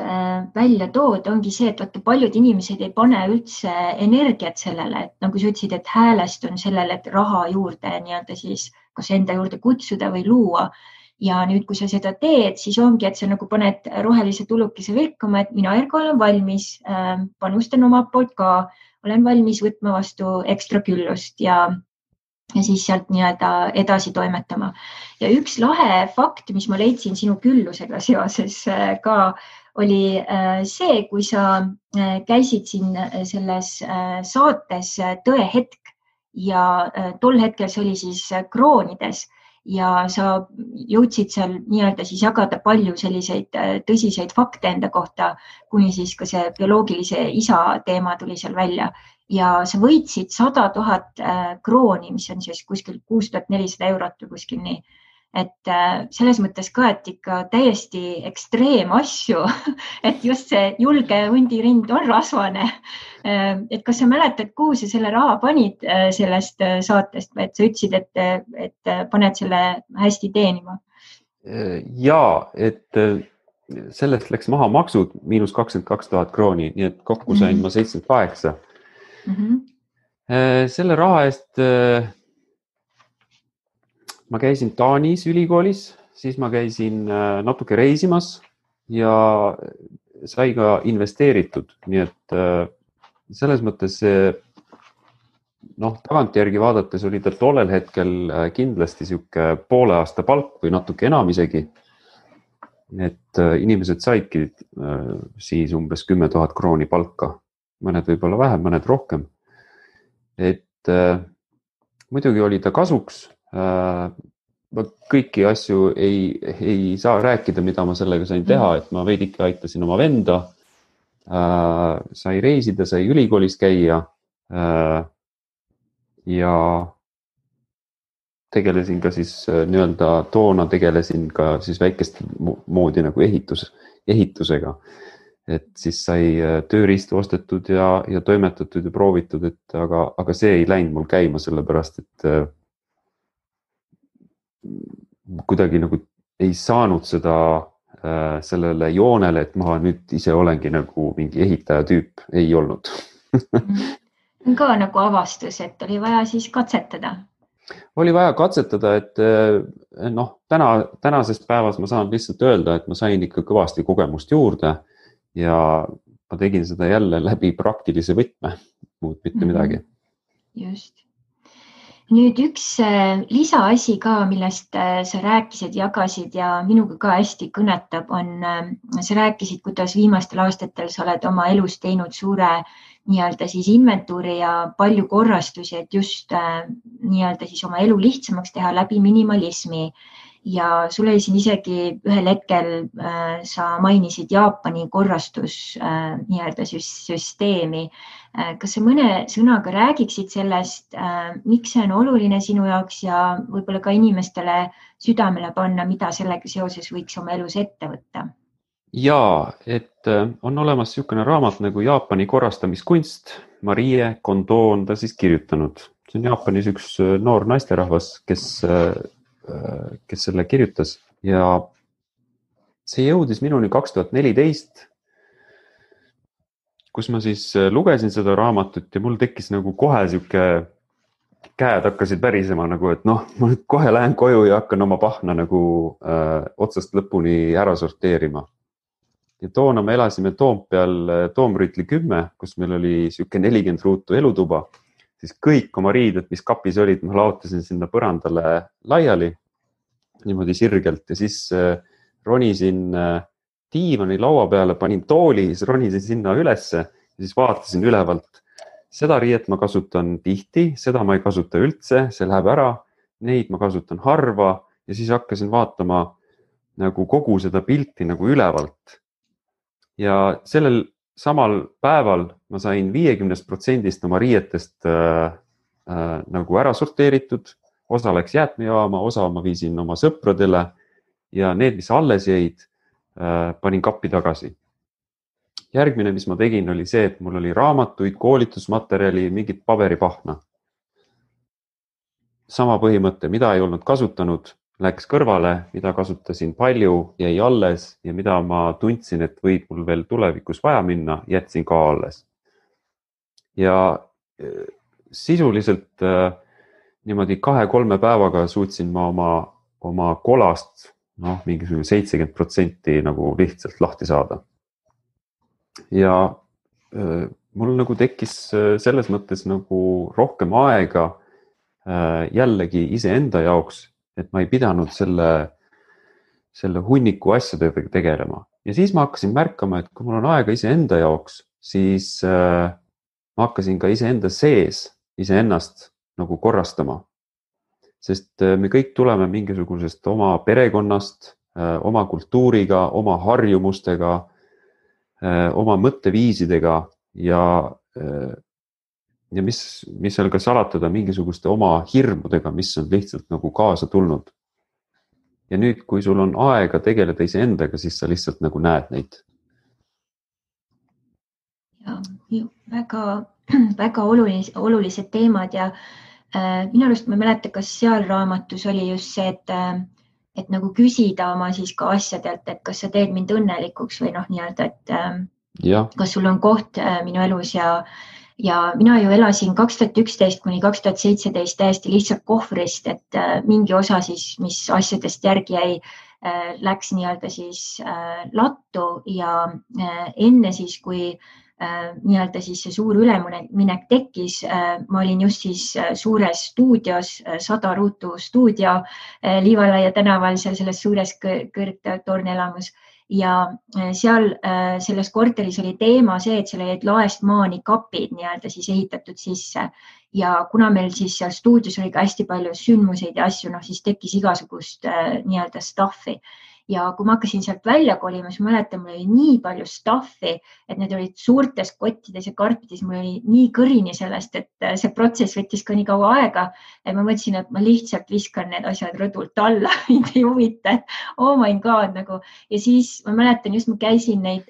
välja tood, ongi see, et paljud inimesed ei pane üldse energiat sellele, et nagu sa ütlesid, et häälestun sellele, et raha juurde nii-öelda siis kas enda juurde kutsuda või luua. Ja nüüd, kui sa seda teed, siis ongi, et sa nagu paned rohelise tulukese vilkuma, et mina Ergo olen valmis, panustan oma poolt ka, olen valmis võtma vastu ekstra küllust ja siis sealt nii-öelda edasi toimetama. Ja üks lahe fakt, mis ma leidsin sinu küllusega seoses ka, oli see, kui sa käisid siin selles saates Tõehetk ja tol hetkel see oli siis kroonides ja sa jõudsid seal nii-öelda siis jagada palju selliseid tõsiseid fakte enda kohta, kuni siis ka see bioloogilise isa teema tuli seal välja. Ja sa võitsid 100 000 krooni, mis on siis kuskil 6400 eurot või kuskil nii. et selles mõttes ka, et ikka täiesti ekstreemasju, et just see julge hundirind on rasvane. Et kas sa mäletad, kuhu sa selle raha panid sellest saatest või et sa ütlesid, et paned selle hästi teenima? Ja, et sellest läks maha maksud -22,000 krooni, nii et kokku sain ma 78. Selle raha eest ma käisin Taanis ülikoolis, siis ma käisin natuke reisimas ja sai ka investeeritud, nii et selles mõttes tagantjärgi vaadates oli ta tollel hetkel kindlasti sihuke poole aasta palk või natuke enam isegi. Et inimesed saidki siis umbes 10 000 krooni palka, mõned võib-olla vähem, mõned rohkem. Et muidugi oli ta kasuks. Kõiki asju ei saa rääkida, mida ma sellega sain teha, et ma veidike aitasin oma venda, sai reisida, sai ülikoolis käia ja tegelesin ka siis toona tegelesin ka siis väikest moodi nagu ehitusega, et siis sai tööriistu ostetud ja toimetatud ja proovitud, et aga see ei läinud mul käima, sellepärast et kuidagi nagu ei saanud seda sellele joonele, et ma nüüd ise olengi nagu mingi ehitaja tüüp, ei olnud. Ka nagu avastus, et oli vaja siis katsetada. Oli vaja katsetada, et tänases päevas ma saan lihtsalt öelda, et ma sain ikka kõvasti kogemust juurde ja ma tegin seda jälle läbi praktilise võtme, muud mitte midagi. Just. Nüüd üks lisaasi ka, millest sa rääkisid, jagasid ja minuga ka hästi kõnetab, on, sa rääkisid, kuidas viimastel aastatel sa oled oma elus teinud suure nii-öelda siis inventuuri ja palju korrastusi, et just nii-öelda siis oma elu lihtsamaks teha läbi minimalismi. Ja sul oli siin isegi ühel hetkel, sa mainisid Jaapani korrastus nii-öelda süsteemi. Kas sa mõne sõnaga räägiksid sellest, miks see on oluline sinu jaoks ja võib-olla ka inimestele südamele panna, mida sellega seoses võiks oma elus ette võtta? Jaa, et on olemas niisugune raamat nagu Jaapani korrastamiskunst, Marie Kondo on ta siis kirjutanud. See on Jaapanis üks noor naisterahvas, kes selle kirjutas ja see jõudis minuni 2014, kus ma siis lugesin seda raamatut ja mul tekkis nagu kohe siuke, käed hakkasid värisema nagu, et ma nüüd kohe lähen koju ja hakkan oma pahna nagu otsast lõpuni ära sorteerima. Ja toona me elasime Toompeal Toomrüütli 10, kus meil oli siuke 40 ruutu elutuba, siis kõik oma riided, mis kapis olid, ma laotasin sinna põrandale laiali niimoodi sirgelt ja siis ronisin diivani laua peale, panin tooli, siis ronisin sinna ülesse ja siis vaatasin ülevalt. Seda riiet ma kasutan tihti, seda ma ei kasuta üldse, see läheb ära, neid ma kasutan harva ja siis hakkasin vaatama nagu kogu seda pilti nagu ülevalt. Ja sellel samal päeval ma sain 50% oma riietest nagu ära sorteeritud, osa läks jäätmejaama, osa ma viisin oma sõpradele ja need, mis alles jäid, panin kappi tagasi. Järgmine, mis ma tegin, oli see, et mul oli raamatuid, koolitusmaterjali, mingit paberipahna. Sama põhimõte, mida ei olnud kasutanud, läks kõrvale, mida kasutasin palju, jäi alles ja mida ma tundsin, et võib mul veel tulevikus vaja minna, jätsin ka alles. Ja sisuliselt niimoodi 2-3 päevaga suutsin ma oma kolast mingisugune 70% nagu lihtsalt lahti saada. Ja mul nagu tekkis selles mõttes nagu rohkem aega jällegi iseenda jaoks, et ma ei pidanud selle hunniku asjadega tegelema. Ja siis ma hakkasin märkama, et kui mul on aega iseenda jaoks, siis ma hakkasin ka iseenda sees iseennast nagu korrastama. Sest me kõik tuleme mingisugusest oma perekonnast, oma kultuuriga, oma harjumustega, oma mõtteviisidega ja mis seal ka salatada mingisuguste oma hirmudega, mis on lihtsalt nagu kaasa tulnud. ja nüüd, kui sul on aega tegeleda iseendaga, siis sa lihtsalt nagu näed neid. Ja, väga, väga olulised teemad ja minu arust ma ei mäleta, kas seal raamatus oli just see, et nagu küsida oma siis ka asjadelt, et kas sa teed mind õnnelikuks või noh, nii-öelda, et kas sul on koht minu elus ja mina ju elasin 2011 kuni 2017 täiesti lihtsalt kohvrist, et mingi osa siis, mis asjadest järgi jäi, läks nii-öelda siis lattu ja enne siis, kui nii-öelda siis see suur üleminek tekkis, ma olin just siis suures stuudios, 100 ruutu stuudio Liivalaia tänaval, seal selles suures kõrgtornelamus. Ja seal selles korteris oli teema see, et seal olid laest maani kapid nii-öelda siis ehitatud sisse ja kuna meil siis seal stuudios oli ka hästi palju sündmuseid ja asju, noh siis tekkis igasugust nii-öelda stuffi. Ja kui ma hakkasin sealt välja kolima, siis ma mäletan, mul oli nii palju stuffi, et need olid suurtes kottides ja karpides, mul oli nii kõrini sellest, et see protsess võttis ka nii kaua aega, et ma mõtlesin, et ma lihtsalt viskan need asjad rõdult alla, mind ei huvita, oh my god nagu. Ja siis ma mäletan just, ma käisin neid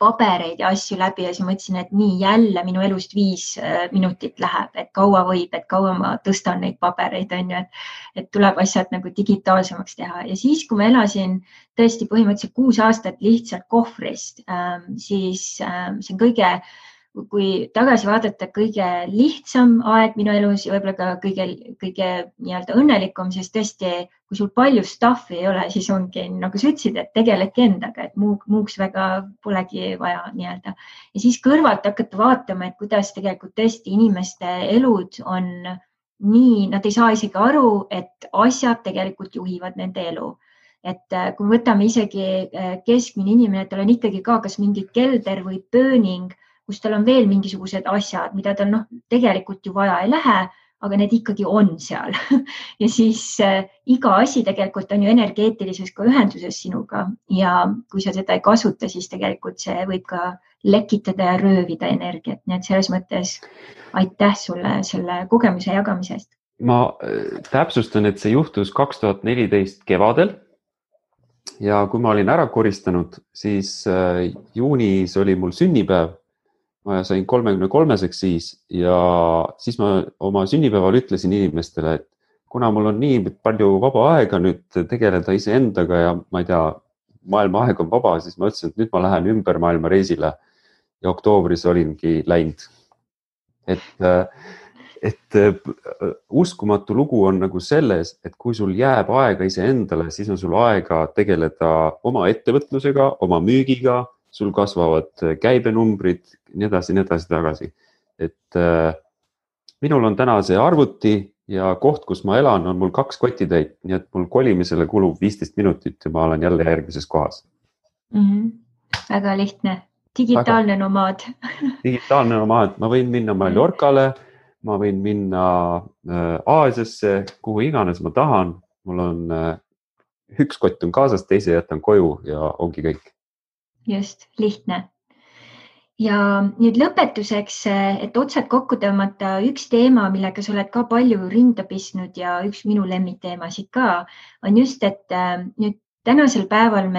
pabereid ja asju läbi ja siis mõtlesin, et nii jälle minu elust 5 minutit läheb, et kaua võib, et kaua ma tõstan neid pabereid, on ju, et tuleb asjad nagu digitaalsemaks teha. Ja siis, kui ma elasin tõesti põhimõtteliselt 6 aastat lihtsalt kohvrist, siis see on kõige, kui tagasi vaadata, kõige lihtsam aeg minu elus ja võib-olla ka kõige nii-öelda õnnelikum, sest tõesti, kui sul palju stuffi ei ole, siis ongi, nagu sa ütlesid, et tegeledki endaga, et muuks väga polegi vaja nii-öelda. Ja siis kõrvalt hakata vaatama, et kuidas tegelikult tõesti inimeste elud on nii, nad ei saa isegi aru, et asjad tegelikult juhivad nende elu. Et kui võtame isegi keskmine inimene, tal on ikkagi ka kas mingi kelder või pööning, kus tal on veel mingisugused asjad, mida tal tegelikult ju vaja ei lähe, aga need ikkagi on seal. Ja siis iga asi tegelikult on ju energeetilises ka ühenduses sinuga ja kui sa seda ei kasuta, siis tegelikult see võib ka lekitada ja röövida energiat. Nii et selles mõttes aitäh sulle selle kogemuse jagamise eest. Ma täpsustan, et see juhtus 2014 kevadel ja kui ma olin ära koristanud, siis juunis oli mul sünnipäev. Ma sain 33-seks siis ja siis ma oma sünnipäeval ütlesin inimestele, et kuna mul on nii palju vaba aega nüüd tegeleda iseendaga ja ma ei tea, maailma aeg on vaba, siis ma ütlesin, et nüüd ma lähen ümber maailma reisile ja oktoobris olingi läinud. Et uskumatu lugu on nagu selles, et kui sul jääb aega iseendale, siis on sul aega tegeleda oma ettevõtlusega, oma müügiga, sul kasvavad käibenumbrid, nii edasi tagasi. Et minul on täna see arvuti ja koht, kus ma elan, on mul 2 kotitäit, nii et mul kolimisele kulub 15 minutit ja ma olen jälle järgmises kohas. Väga lihtne. Digitaalne nomaad. Digitaalne nomaad. Ma võin minna Mallorcale, ma võin minna Aasiasse, kuhu iganes ma tahan. Mul on 1 kott on kaasas, teise jätan koju ja ongi kõik. Just, lihtne. Ja nüüd lõpetuseks, et otsad kokku tõmmata üks teema, millega sa oled ka palju rinda pistnud ja üks minu lemmikteemasid ka, on just, et nüüd tänasel päeval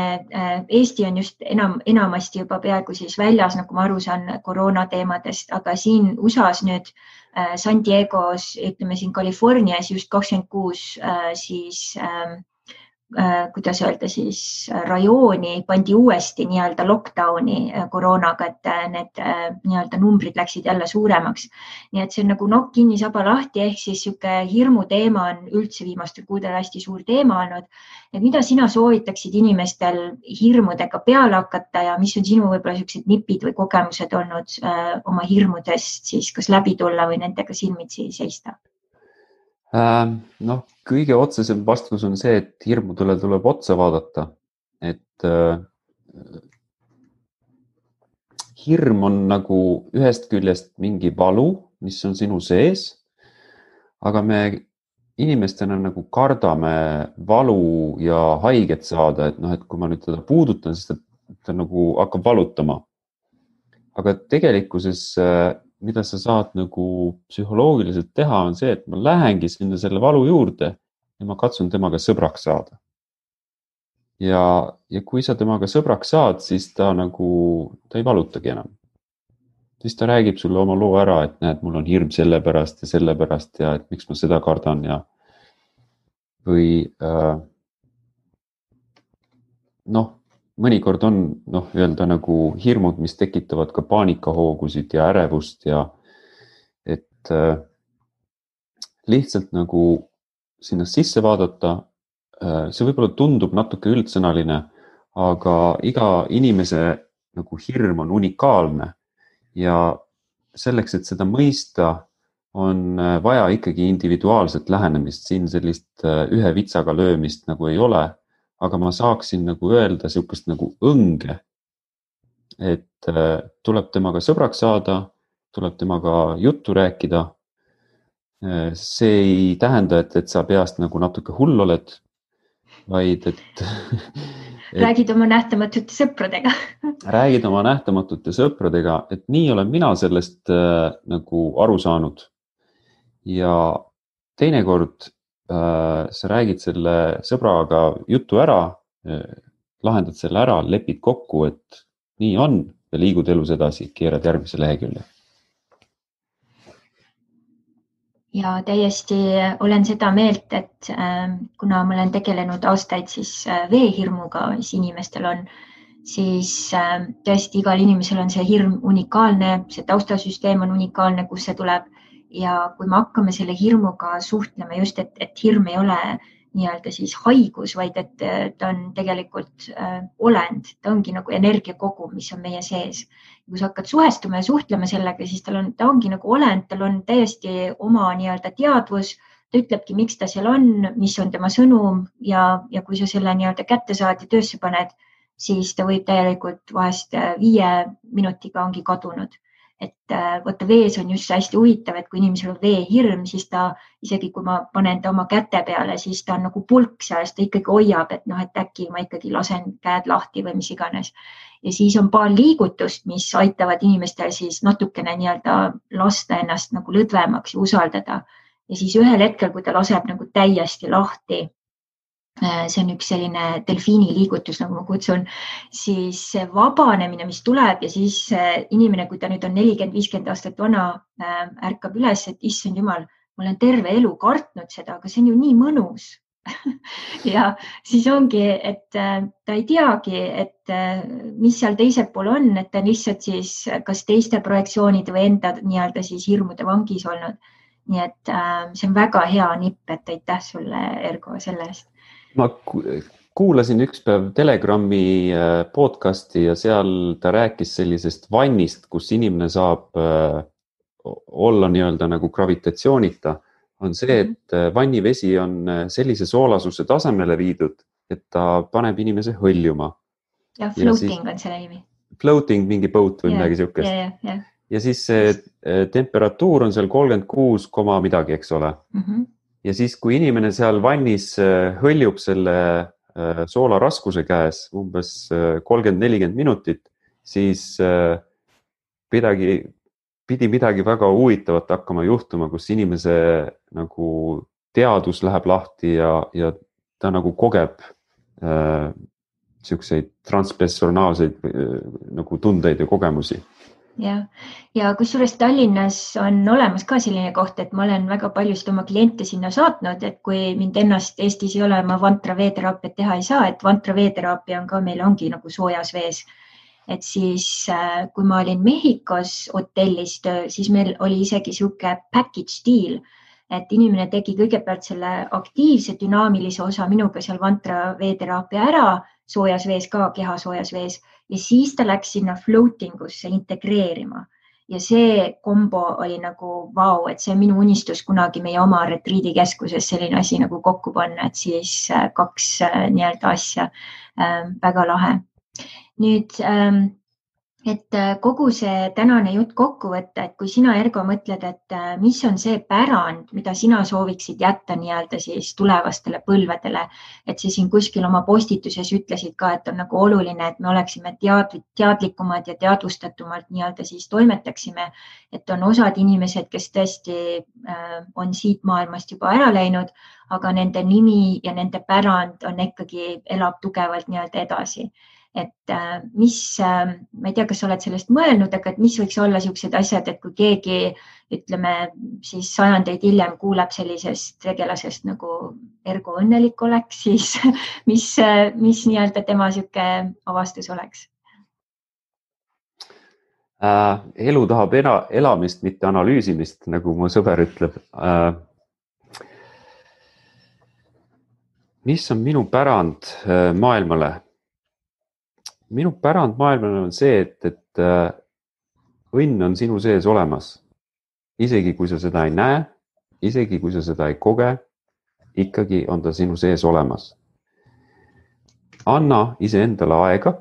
Eesti on just enamasti juba peaaegu siis väljas, nagu ma aru saan koroona teemadest, aga siin USAs nüüd San Diegos, ütleme siin Californias just 26 siis kuidas öelda siis rajooni pandi uuesti nii-öelda lockdowni koroonaga, et need nii-öelda numbrid läksid jälle suuremaks. Nii et see on nagu nokk kinni, saba lahti, ehk siis sihuke hirmu teema on üldse viimastel kuudel hästi suur teema olnud. Et mida sina soovitaksid inimestel hirmudega peale hakata ja mis on sinu võib-olla sellised nipid või kogemused olnud oma hirmudest siis kas läbi tulla või nendega silmitsi seista? Kõige otsesem vastus on see, et hirmudele tuleb otsa vaadata, et hirm on nagu ühest küljest mingi valu, mis on sinu sees, aga me inimestena nagu kardame valu ja haiget saada, et kui ma nüüd teda puudutan, siis ta nagu hakkab valutama. Aga tegelikkuses mida sa saad nagu psühholoogiliselt teha, on see, et ma lähengi sinna selle valu juurde ja ma katsun temaga sõbraks saada. Ja kui sa temaga sõbraks saad, siis ta ei valutagi enam. Siis ta räägib sulle oma loo ära, et näed, mul on hirm selle pärast ja et miks ma seda kardan ja või mõnikord on öelda hirmud, mis tekitavad ka paanikahoogusid ja ärevust ja et lihtsalt sinna sisse vaadata. See võib-olla tundub natuke üldsõnaline, aga iga inimese hirm on unikaalne ja selleks, et seda mõista, on vaja ikkagi individuaalset lähenemist, siin sellist ühe vitsaga löömist ei ole, aga ma saaksin öelda sihukest õnge, et tuleb temaga sõbraks saada, tuleb temaga juttu rääkida. See ei tähenda, et sa peast natuke hull oled, vaid et räägid oma nähtamatute sõpradega. Räägid oma nähtamatute sõpradega, et nii olen mina sellest aru saanud. Ja teinekord sa räägid selle sõbraga jutu ära, lahendad selle ära, lepid kokku, et nii on ja liigud elus edasi, keerad järgmise lehekülje. Ja täiesti olen seda meelt, et kuna ma olen tegelenud aastaid siis veehirmuga, mis inimestel on, siis tõesti igal inimesel on see hirm unikaalne, see taustasüsteem on unikaalne, kus see tuleb. Ja kui me hakkame selle hirmuga suhtlema just, et hirm ei ole nii-öelda siis haigus, vaid et ta on tegelikult olend, ta ongi energiakogum, mis on meie sees. Kui sa hakkad suhestuma ja suhtlema sellega, siis ta ongi olend, tal on täiesti oma nii-öelda teadvus, ta ütlebki, miks ta seal on, mis on tema sõnum ja kui sa selle nii-öelda kätte saad ja töösse paned, siis ta võib täielikult vahest 5 minutiga ongi kadunud. Et võtta vees on just hästi huvitav, et kui inimesel on veehirm, siis ta isegi kui ma panen ta oma käte peale, siis ta on pulk seal, ta ikkagi hoiab, et äkki ma ikkagi lasen käed lahti või mis iganes. Ja siis on paar liigutust, mis aitavad inimestel siis natukene nii-öelda lasta ennast lõdvemaks ja usaldada. Ja siis ühel hetkel, kui ta laseb täiesti lahti, see on üks selline delfiini liigutus, nagu ma kutsun, siis see vabanemine, mis tuleb ja siis inimene, kui ta nüüd on 40-50 aastat vana, ärkab üles, et issand jumal, ma olen terve elu kartnud seda, aga see on ju nii mõnus. Ja siis ongi, et ta ei teagi, et mis seal teisel pool on, et ta on lihtsalt siis kas teiste projektsioonide või enda nii-öelda siis hirmude vangis olnud. Nii et see on väga hea nipp, et aitäh sulle, Ergo, selle eest. Ma kuulasin üks päev Telegrami podcasti ja seal ta rääkis sellisest vannist, kus inimene saab olla nii-öelda gravitatsioonita, on see, et vannivesi on sellise soolasuse tasemele viidud, et ta paneb inimese hõljuma. Ja floating on selle nimi. Floating, mingi boat või midagi sihukest. Ja siis see temperatuur on seal 36, midagi, eks ole. Ja siis, kui inimene seal vannis hõljub selle soola raskuse käes umbes 30-40 minutit, siis pidi midagi väga huvitavat hakkama juhtuma, kus inimese teadus läheb lahti ja ta kogeb siukseid transpersonaalseid tundeid ja kogemusi. Ja kusjuures Tallinnas on olemas ka selline koht, et ma olen väga paljusid oma kliente sinna saatnud, et kui mind ennast Eestis ei ole, ma vantra veeteraapiat teha ei saa, et vantra veeteraapia on ka meil ongi soojas vees. Et siis, kui ma olin Mehhikos hotellis töö, siis meil oli isegi sihuke package deal, et inimene tegi kõigepealt selle aktiivse dünaamilise osa minuga seal vantra veeteraapia ära, soojas vees ka, keha soojas vees, ja siis ta läks sinna floating usse integreerima. Ja see kombo oli vau, et see on minu unistus kunagi meie oma retriidikeskuses selline asi kokku panna, et siis 2 nii-öelda asja, väga lahe. Nüüd et kogu see tänane jutt kokku võtta, et kui sina, Ergo, mõtled, et mis on see pärand, mida sina sooviksid jätta nii-öelda siis tulevastele põlvedele, et sa siin kuskil oma postituses ütlesid ka, et on nagu oluline, et me oleksime teadlikumad ja teadvustatumalt nii-öelda siis toimetaksime, et on osad inimesed, kes tõesti on siit maailmast juba ära läinud, aga nende nimi ja nende pärand on ikkagi, elab tugevalt nii-öelda edasi. Et ma ei tea, kas sa oled sellest mõelnud, aga et mis võiks olla niisugused asjad, et kui keegi, ütleme siis sajandeid hiljem kuuleb sellisest tegelasest nagu Ergo õnnelik oleks, siis mis nii-öelda tema niisugune avastus oleks? Elu tahab elamist, mitte analüüsimist, nagu mu sõber ütleb. Mis on minu pärand maailmale? Minu pärand maailmale on see, et õnn on sinu sees olemas. Isegi kui sa seda ei näe, isegi kui sa seda ei koge, ikkagi on ta sinu sees olemas. Anna iseendale aega,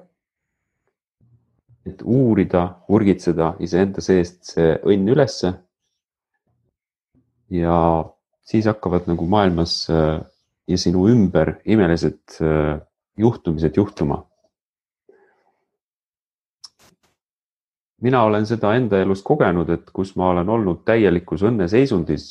et uurida, urgitseda iseenda seest see õnn ülesse. Ja siis hakkavad nagu maailmas ja sinu ümber imelised juhtumised juhtuma. Mina olen seda enda elus kogenud, et kus ma olen olnud täielikus õnneseisundis,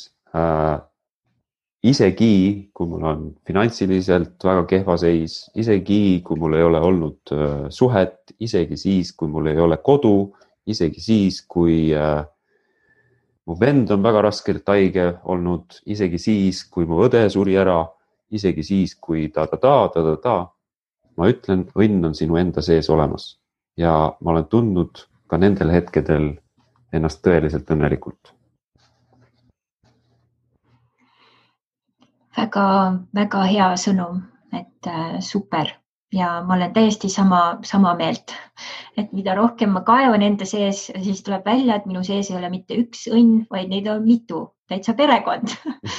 isegi kui mul on finantsiliselt väga kehva seis, isegi kui mul ei ole olnud suhet, isegi siis, kui mul ei ole kodu, isegi siis, kui mu vend on väga raskelt haige olnud, isegi siis, kui mu õde suri ära, isegi siis, kui ta. Ma ütlen, õnn on sinu enda sees olemas ja ma olen tundnud ka nendel hetkedel ennast tõeliselt õnnelikult. Väga, väga hea sõnum, et super. Ja ma olen täiesti sama meelt, et mida rohkem ma kaevan enda sees, siis tuleb välja, et minu sees ei ole mitte üks õnn, vaid neid on mitu, täitsa perekond.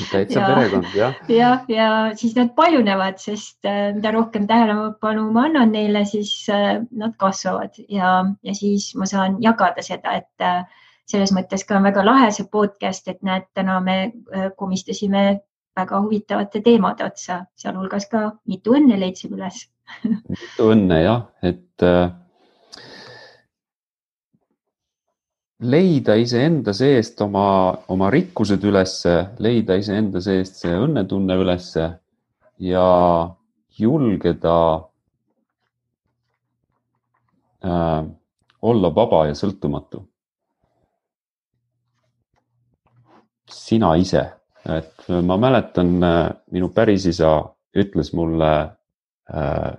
Perekond, jah. Ja siis nad paljunevad, sest mida rohkem tähelepanu ma annan neile, siis nad kasvavad ja siis ma saan jagada seda, et selles mõttes ka on väga lahe see podcast, et näed, täna me komistasime väga huvitavate teemade otsa, sealhulgas ka mitu õnne leidsime üles. Mitu õnne, jah, et leida iseenda seest oma rikkused ülesse, leida iseenda seest see õnnetunne ülesse ja julgeda olla vaba ja sõltumatu. Sina ise. Et ma mäletan, minu pärisisa ütles mulle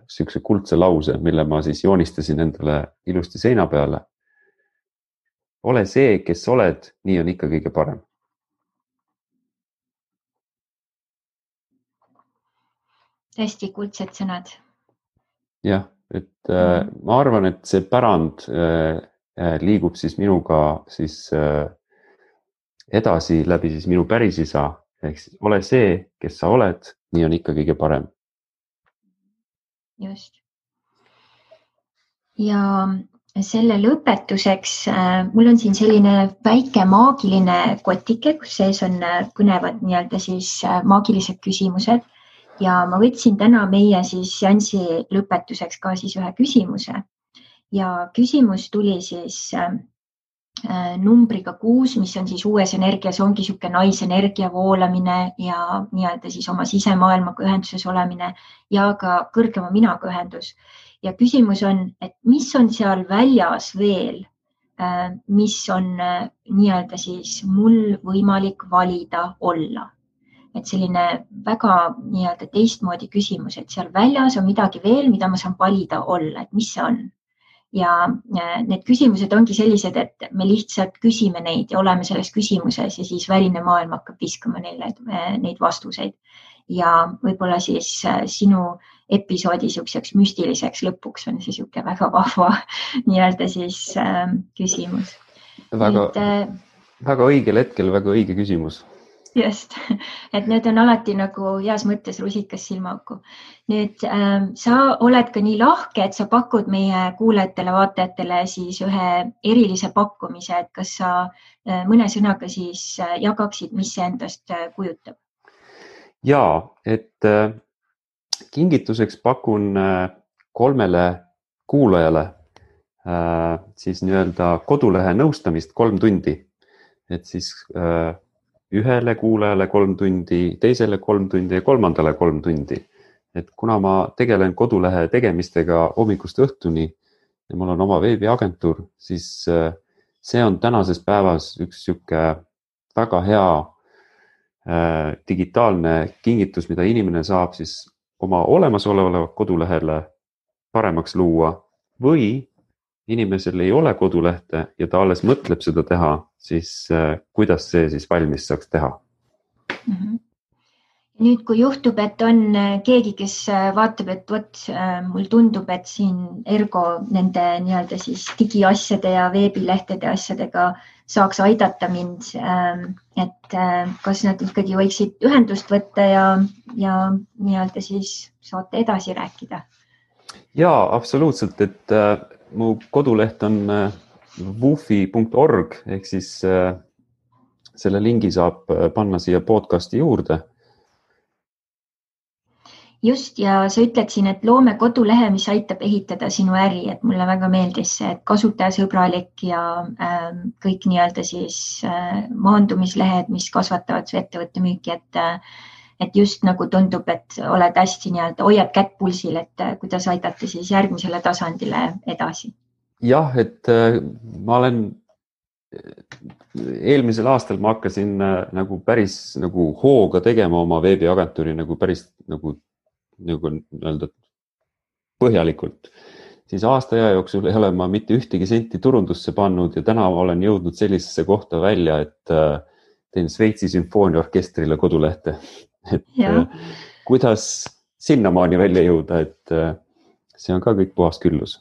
sihukese kuldse lause, mille ma siis joonistasin endale ilusti seina peale. Ole see, kes oled, nii on ikka kõige parem. Hästi kuldsed sõnad. Jah, et ma arvan, et see pärand liigub siis minuga siis edasi läbi siis minu pärisisa, ehk ole see, kes sa oled, nii on ikka kõige parem. Just. Ja selle lõpetuseks mul on siin selline väike maagiline kotike, kus sees on kõnevad nii-öelda siis maagilised küsimused ja ma võtsin täna meie siis seansi lõpetuseks ka siis ühe küsimuse ja küsimus tuli siis numbriga 6, mis on siis uues energias, ongi niisugune naisenergia voolamine ja nii-öelda siis oma sisemaailmaga ühenduses olemine ja ka kõrgema minaga ühendus. Ja küsimus on, et mis on seal väljas veel, mis on nii-öelda siis mul võimalik valida olla. Et selline väga nii-öelda teistmoodi küsimus, et seal väljas on midagi veel, mida ma saan valida olla, et mis see on. Ja need küsimused ongi sellised, et me lihtsalt küsime neid ja oleme selles küsimuses ja siis väline maailm hakkab viskama neile neid vastuseid. Ja võib-olla siis sinu episoodi niisuguseks müstiliseks lõpuks on see niisugune väga vahva nii-öelda siis küsimus. Väga õigel hetkel, väga õige küsimus. just, et need on alati nagu heas mõttes rusikas silmaauku. Nüüd sa oled ka nii lahke, et sa pakud meie kuulajatele, vaatajatele siis ühe erilise pakkumise, et kas sa mõne sõnaga siis jagaksid, mis see endast kujutab? Ja, et kingituseks pakun 3 kuulajale siis nii-öelda kodulehe nõustamist 3 tundi, et siis ühele kuulajale 3 tundi, teisele 3 tundi ja 3. 3 tundi. Et kuna ma tegelen kodulehe tegemistega hommikust õhtuni ja mul on oma veebiagentuur, siis see on tänases päevas üks sihuke väga hea digitaalne kingitus, mida inimene saab siis oma olemasolevale kodulehele paremaks luua või inimesel ei ole kodulehte ja ta alles mõtleb seda teha, siis kuidas see siis valmis saaks teha? Nüüd, kui juhtub, et on keegi, kes vaatab, et vot mul tundub, et siin Ergo nende nii-öelda siis digiasjade ja veebilehtede asjadega saaks aidata mind, et kas nad ikkagi võiksid ühendust võtta ja nii-öelda siis saate edasi rääkida? Jaa, absoluutselt, et mu koduleht on wufi.org ehk siis selle lingi saab panna siia podcasti juurde. Just, ja sa ütled siin, et loome kodulehe, mis aitab ehitada sinu äri, et mulle väga meeldis see, et kasutajasõbralik ja kõik nii-öelda siis maandumislehed, mis kasvatavad su ettevõtte müüki, et just nagu tundub, et oled hästi nii-öelda, hoiad kätt pulsil, et kuidas aidata siis järgmisele tasandile edasi. Jah, et ma olen eelmisel aastal ma hakkasin nagu päris nagu hooga tegema oma veebiagentuuri nagu päris nagu öelda põhjalikult. Siis aasta aja jooksul ei ole ma mitte ühtegi senti turundusse pannud ja täna olen jõudnud sellisesse kohta välja, et teen Šveitsi sümfooniaorkestrile kodulehte. Et kuidas sinnamaani välja jõuda, et see on ka kõik puhas küllus.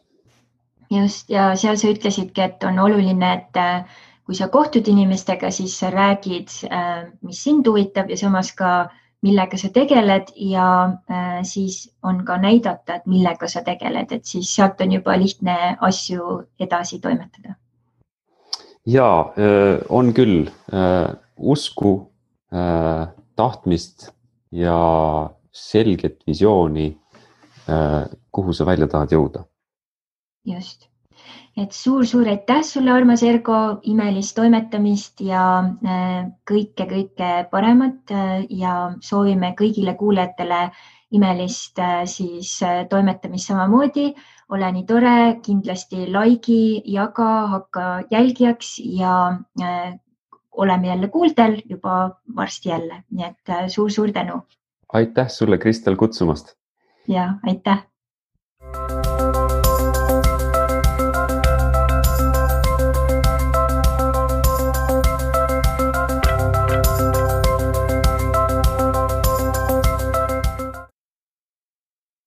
Just, ja seal sa ütlesidki, et on oluline, et kui sa kohtud inimestega, siis sa räägid, mis sind huvitab ja samas ka millega sa tegeled ja siis on ka näidata, et millega sa tegeled, et siis sealt on juba lihtne asju edasi toimetada. Jaa, on küll usku, tahtmist ja selget visiooni, kuhu sa välja tahad jõuda. Just. Et suur aitäh sulle, armas Ergo, imelist toimetamist ja kõike paremat ja soovime kõigile kuulajatele imelist siis toimetamist samamoodi. Ole nii tore, kindlasti laigi, jaga, hakka jälgijaks ja oleme jälle kuuldel juba varsti jälle. Nii et suur tänu. Aitäh sulle, Kristel, kutsumast. Ja, aitäh.